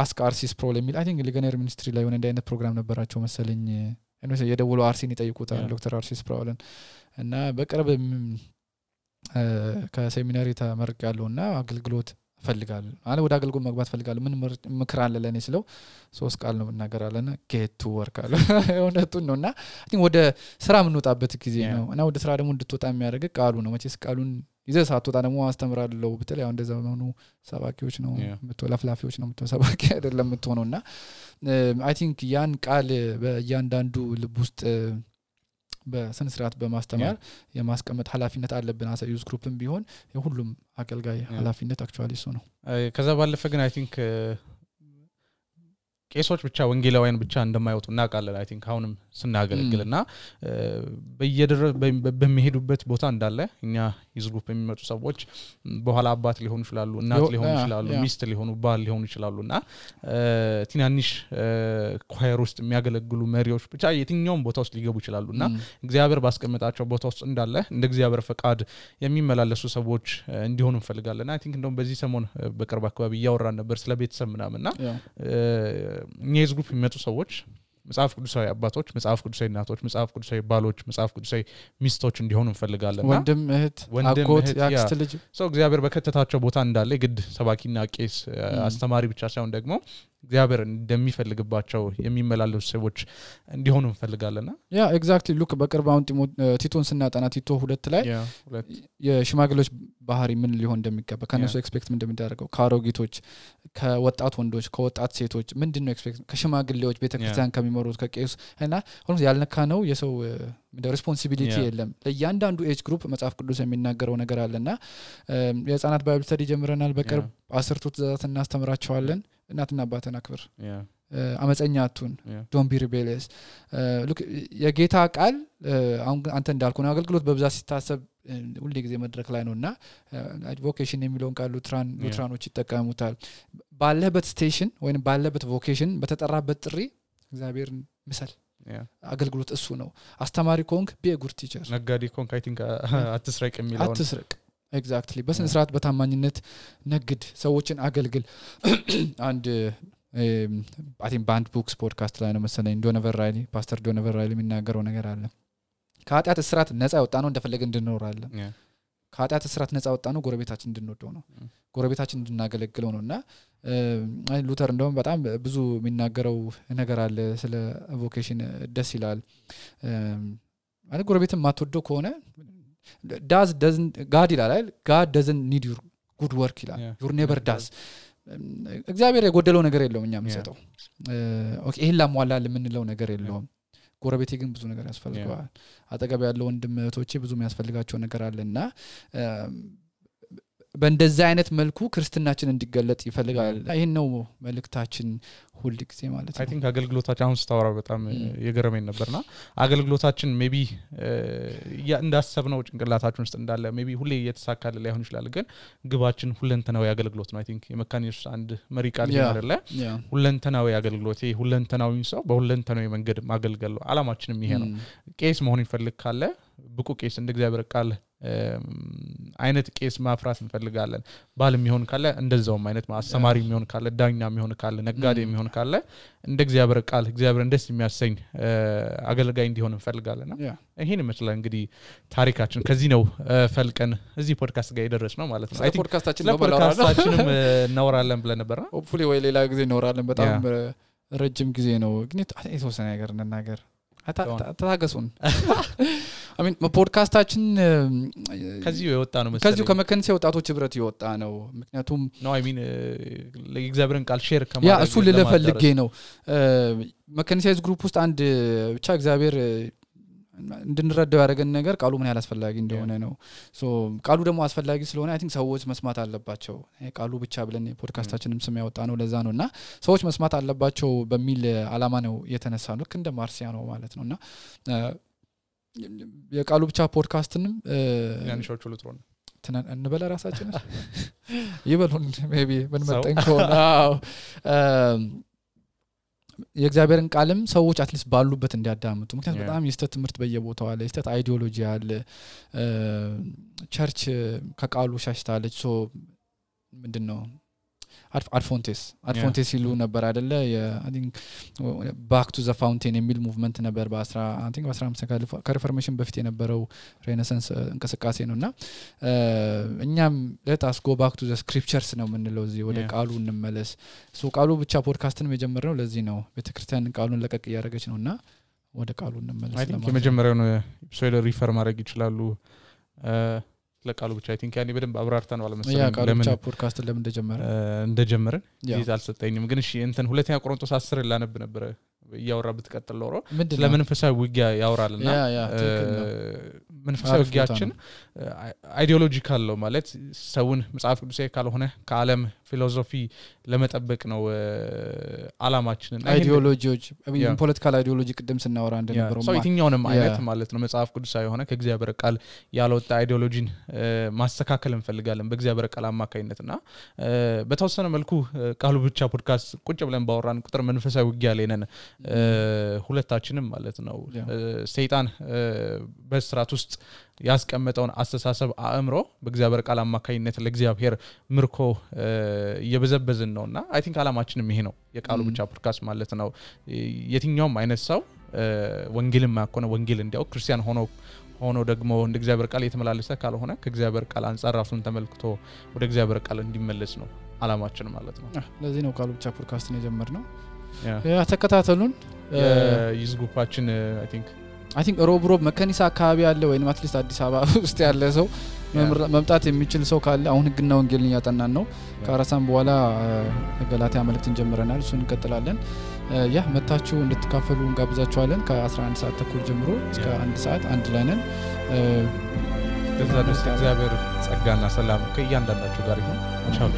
አስክ አርሲስ ፕሮል የሚል አይ ቲንክ ሊገነር ሚኒስትሪ ላይ ሆነ እንደ አይነት ፕሮግራም ነበራቸው መሰለኝ እነሱ የደውለው አርሲን ይጠይቁታል ዶክተር አርሲ ስፕራውልን እና በቅርብ ከሴሚናሪ ተመርቄያለሁና አገልግሎት ፈልጋለሁ አለ ወደ አገልግሎት መግባት ፈልጋለሁ ምን ምክር አለ ለኔ ስለው 3 ቃል ነው እናገራለና get to work አለ እውነቱን ነውና ወደ ስራ ምንወጣበት ጊዜ ነው እና ወደ ስራ ደግሞ እንድትወጣ የሚያደርግ ቃሉ ነው መቼስ ቃሉን ይዘህ ሳትወጣ ደግሞ አስተምራለሁ በተለይ አሁን እንደዛ ሆኖ ሰባኪዎች ነው ለፍላፊዎች ነው ሰባኪ አይደለም የምትሆነውና I think ያን ቃል በእያንዳንዱ ልብ ውስጥ በስነ ስርዓት በማስተማር የማስቀመጥ ኃላፊነት አለብን አሳ ዩዝ ግሩፕም ቢሆን የሁሉም አገልጋይ ኃላፊነት አክቹአሊ እሱ ነው ከዛ ባለፈ ግን I think ቄሶች ብቻ ወንጌላውያን ብቻ እንደማይወጡ እናቃለን I think አሁንም ስናገለግልና በሚሄዱበት ቦታ እንዳለ እኛ ዩዝ ግሩፕ የሚመጡ ሰዎች በኋላ አባት ሊሆኑ ይችላሉ እናት ሊሆኑ ይችላሉ ሚስት ሊሆኑ ባል ሊሆኑ ይችላሉና ትናንሽ ኳየር ውስጥ የሚያገለግሉ መሪዎች ብቻ የትኛውም ቦታ ውስጥ ሊገቡ ይችላሉና እግዚአብሔር ባስቀመጣቸው ቦታ ውስጥ እንዳለ እንደ እግዚአብሔር ፈቃድ የሚመላለሱ ሰዎች እንዲሆኑ እንፈልጋለንና I think እንደውም በዚህ ሰሞን በቅርብ አካባቢ ያወራን ነበር ስለ ቤተሰብ ምናምንና ዩዝ ግሩፕ የሚመጡ ሰዎች መጽሐፍ ቅዱሳዊ አባቶች መጽሐፍ ቅዱሳዊ እናቶች መጽሐፍ ቅዱሳዊ ባሎች መጽሐፍ ቅዱሳዊ ሚስቶች እንዲሆኑ እንፈልጋለንና ወንድም እህት አጎት ያክስት ልጅ እግዚአብሔር በከተታቸው ቦታ እንዳለ ግድ ሰባኪና ቄስ አስተማሪ ብቻ ሳይሆን ደግሞ እግዚአብሔር እንደሚፈልግባቸው የሚመላለሱ ሰዎች እንዲሆኑ እንፈልጋለንና ያ ኤግዛክትሊ ሉክ በቅርብ አሁን ቲቶን ስናጠና ቲቶ 2 ላይ የሽማግሌዎች ባህሪ ምን ሊሆን እንደሚገባ ከነሱ ኤክስፔክት ምን እንደሚያደርገው ካሮጊቶች ከወጣት ወንዶች ከወጣት ሴቶች ምንድነው ኤክስፔክት ከሽማግሌዎች ቤተክርስቲያን ከሚመሩት ከቄስ እና ሁሉ ያልነካ ነው የሰው ሪስፖንሲቢሊቲ የለም ለእያንዳንዱ ኤጅ ግሩፕ መጽሐፍ ቅዱስ የሚናገረው ነገር አለና የህፃናት ባይብል ስተዲ ጀምረናል በቅርብ 10 ትእዛዛት እናስተምራቸዋለን እናትና አባተን አክብር አመፀኛ አቱን ዶንት ቢ ሪቤሊየስ ሉክ የጌታ ቃል አሁን አንተ እንዳልኩ ነው አገልግሎት በብዛት ሲታሰብ ሁሉ ጊዜ መድረክ ላይ ነውና ቮኬሽን የሚለውን ቃል ሉትራኖች ይጠቀሙታል ባለበት ስቴሽን ወይንም ባለበት ቮኬሽን በተጠራበት ጥሪ እግዚአብሔርን ምሰል አገልግሎት እሱ ነው አስተማሪ ኮንክ ቢ ጉድ ቲቸር ነጋዴ ኮንክ I think አትስረቅ የሚለው አትስረቅ ኤግዛክትሊ በስነ ስርዓት በታማኝነት ነግድ ሰዎችን አገልግል አንድ I think band books podcast ላይ ነው መሰለኝ ዶኖቨር ራይሊ ፓስተር ዶኖቨር ራይሊ የሚናገረው ነገር አለ ከኃጢአት እስራት ነፃ ወጣ ነው እንደፈለገ እንድንኖራለን ከኃጢአት እስራት ነፃ ወጣ ነው ጎረቤታችን እንድንወደው ነው ጎረቤታችን እንድናገለግለው ነውና ሉተር እንደውም በጣም ብዙ የሚናገረው ነገር አለ ስለ ቮኬሽን ደስ ይላል ማለት ጎረቤትን ማትወደው ከሆነ God ይላል God doesn't need your good work ይላል your neighbor does እግዚአብሔር የጎደለው ነገር የለውም እኛ የምንሰጠው ኦኬ ይሄን ላሟላል የምንለው ነገር የለውም ጎረቤቴ ግን ብዙ ነገር ያስፈልጋል አጠገብ ያለው ወንድም እህቶቼ ብዙ የሚያስፈልጋቸው ነገር አለና በእንደዛ አይነት መልኩ ክርስትናችን እንዲገለጥ ይፈልጋል ይሄን ነው መልእክታችን ሁሉ ጊዜ ማለት ነው I think አገልግሎታችን አሁን ስታወራ በጣም የገረመኝ ነበርና አገልግሎታችን ሜቢ እንዳሰብነው ጭንቅላታችን ውስጥ እንዳለ ሜቢ ሁሌ እየተሳካለ ላይሆን ይችላል ግን ግባችን ሁለንተናዊ አገልግሎት ነው I think የመካኒስ አንድ መሪ ቃል ይላል ሁለንተናዊ አገልግሎት ሁለንተናዊ ሰው በሁለንተናዊ መንገድ ማገልገል ነው አላማችንም ይሄ ነው ቄስ መሆን ይፈልግ ካለ ብቁ ቄስ እንደ እግዚአብሔር ቃል አይነት ቄስ ማፍራት እንፈልጋለን ባልም ይሆን ካለ እንደዛውም አይነት ማስተማሪ የሚሆን ካለ ዳኛ የሚሆን ካለ ነጋዴ የሚሆን ካለ እንደ እግዚአብሔር ቃል እግዚአብሔር እንደስ የሚያሰኝ አገልጋይ እንዲሆን እንፈልጋለንና ይሄን ይመስላል እንግዲህ ታሪካችን ከዚህ ነው ፈልቀን እዚህ ፖድካስት ጋር የደረስነው ማለት ነው አይ ቲንክ ፖድካስታችንም እናወራለን ብለን ነበር ሆፕፉሊ ወይ ሌላ ጊዜ እናወራለን በጣም ረጅም ጊዜ ነው ግን የተወሰነ ነገር እንናገር አታታገሱን I mean ፖድካስታችን ከዚህ የወጣ ነው መሰለኝ ከዚህ ከመከንሴ ወጣቶች ህብረት የወጣ ነው ምክንያቱም no I mean ለእግዚአብሔርን ቃል ሼር ከማድረግ ያ እሱ ለፈልጌ ነው መከንሴስ ግሩፕ ውስጥ አንድ ብቻ እግዚአብሔር እንድንረዳው ያደረገን ነገር ቃሉ ምን ያህል አስፈላጊ እንደሆነ ነው ሶ ቃሉ ደግሞ አስፈላጊ ስለሆነ I think ሰዎች መስማት አለባቸው ቃሉ ብቻ ብለን ፖድካስታችንም ስም ያወጣ ነው ለዛ ነውና ሰዎች መስማት አለባቸው በሚል አላማ ነው የተነሳ ነው እንደ ማርሲያ ነው ማለት ነውና የቃሉ ብቻ ፖድካስትንም ያንሾቹ ልትሮን እንበለ ራሳችን ይበሉን ሜቢ ምን መጠንከውና የእግዚአብሔርን ቃልም ሰዎች አትሊስት ባሉበት እንዲያዳምጡ ምክንያቱም በጣም የስተት ትምህርት በየቦታው አለ የስተት አይዲዮሎጂ አለ ቸርች ከቃሉ ሻሽታለች ሶ ምንድነው አድፎንቴስ ይሉ ነበር አይደለ I think back to the fountain የሚል ሙቭመንት ነበር በ15 ከሪፎርሜሽን በፊት የነበረው ሬኔሳንስ እንቅስቃሴ ነውና እኛም let us go back to the scriptures ነው የምንለው እዚህ ወደ ቃሉ እንመለስ ቃሉ ብቻ ፖድካስትን የጀመርነው ለዚህ ነው ቤተክርስቲያን ቃሉን ለቀቅ ያደረገች ነውና ወደ ቃሉ እንመለስ I think የመጀመሪያውን ኤፒሶድ ሪፈር ማድረግ ይችላሉ ለቃሉ ብቻ I think ያኔ በደንብ አብራርተን ዋለ መሰለኝ ለምን ፖድካስት ለምን እንደጀመረን ይዝ አልሰጠኝም ግን እሺ እንትን ሁለተኛ ቆሮንቶስ 10 ላነብ ነበር ያወራ ብትቀጥል ኖሮ ለመንፈሳዊ ውጊያ ያወራልና መንፈሳዊ ውጊያችን አይዲዮሎጂካል ነው ማለት ሰውን መጽሐፍ ቅዱሳዊ ካልሆነ ከዓለም ፊሎሶፊ ለመጠበቅ ነው አላማችን አይዲዮሎጂዎች ፖለቲካል አይዲዮሎጂ ቅድም ስናወራ እንደነበረው ሰው የትኛውንም አይነት ማለት ነው መጽሐፍ ቅዱሳዊ ሆነ ከእግዚአብሔር ቃል ያልወጣ አይዲዮሎጂን ማስተካከል እንፈልጋለን በእግዚአብሔር ቃል አማካኝነትና በተወሰነ መልኩ ቃሉ ብቻ ፖድካስት ቁጭ ብለን ባወራን ቁጥር መንፈሳዊ ውጊያ ላይ ነን ሁለታችንም ማለት ነው ሰይጣን በስራት ውስጥ ያስቀመጠውን አስተሳሰብ አእምሮ በእግዚአብሔር ቃል አማካኝነት ለእግዚአብሔር ምርኮ እየበዘበዝን ነውና አይ ቲንክ አላማችንም ይሄ ነው የቃሉ ብቻ ፖድካስት ማለት ነው የትኛውም አይነት ሰው ወንጌልን ማቆነ ወንጌል እንዲያው ክርስቲያን ሆኖ ደግሞ እንደ እግዚአብሔር ቃል የተመላለሰ ካልሆነ ከእግዚአብሔር ቃል አንፃር ራሱን ተመልክቶ ወደ እግዚአብሔር ቃል እንዲመለስ ነው አላማችን ማለት ነው ለዚህ ነው ቃሉ ብቻ ፖድካስትን የጀመርነው ተከታተሉን ይዝጉፓችን I think ሮብ መከኒሳ አካባቢ ያለ ወይንም አትሊስት አዲስ አበባ ውስጥ ያለ ሰው መምጣት የሚችል ሰው ካለ አሁን ህግና ወንጌልን ያጠናን ነው ከአራሳም በኋላ ገላትያ መልእክትን ጀምረናል እሱን እንቀጥላለን መታችሁ እንድትካፈሉ እንጋብዛችኋለን ከ11 ሰዓት ተኩል ጀምሮ እስከ 1 ሰዓት አንድ ላይ ነን ከዛ ድረስ እግዚአብሔር ጸጋና ሰላም ከእያንዳንዳችሁ ጋር ይሁን ቻው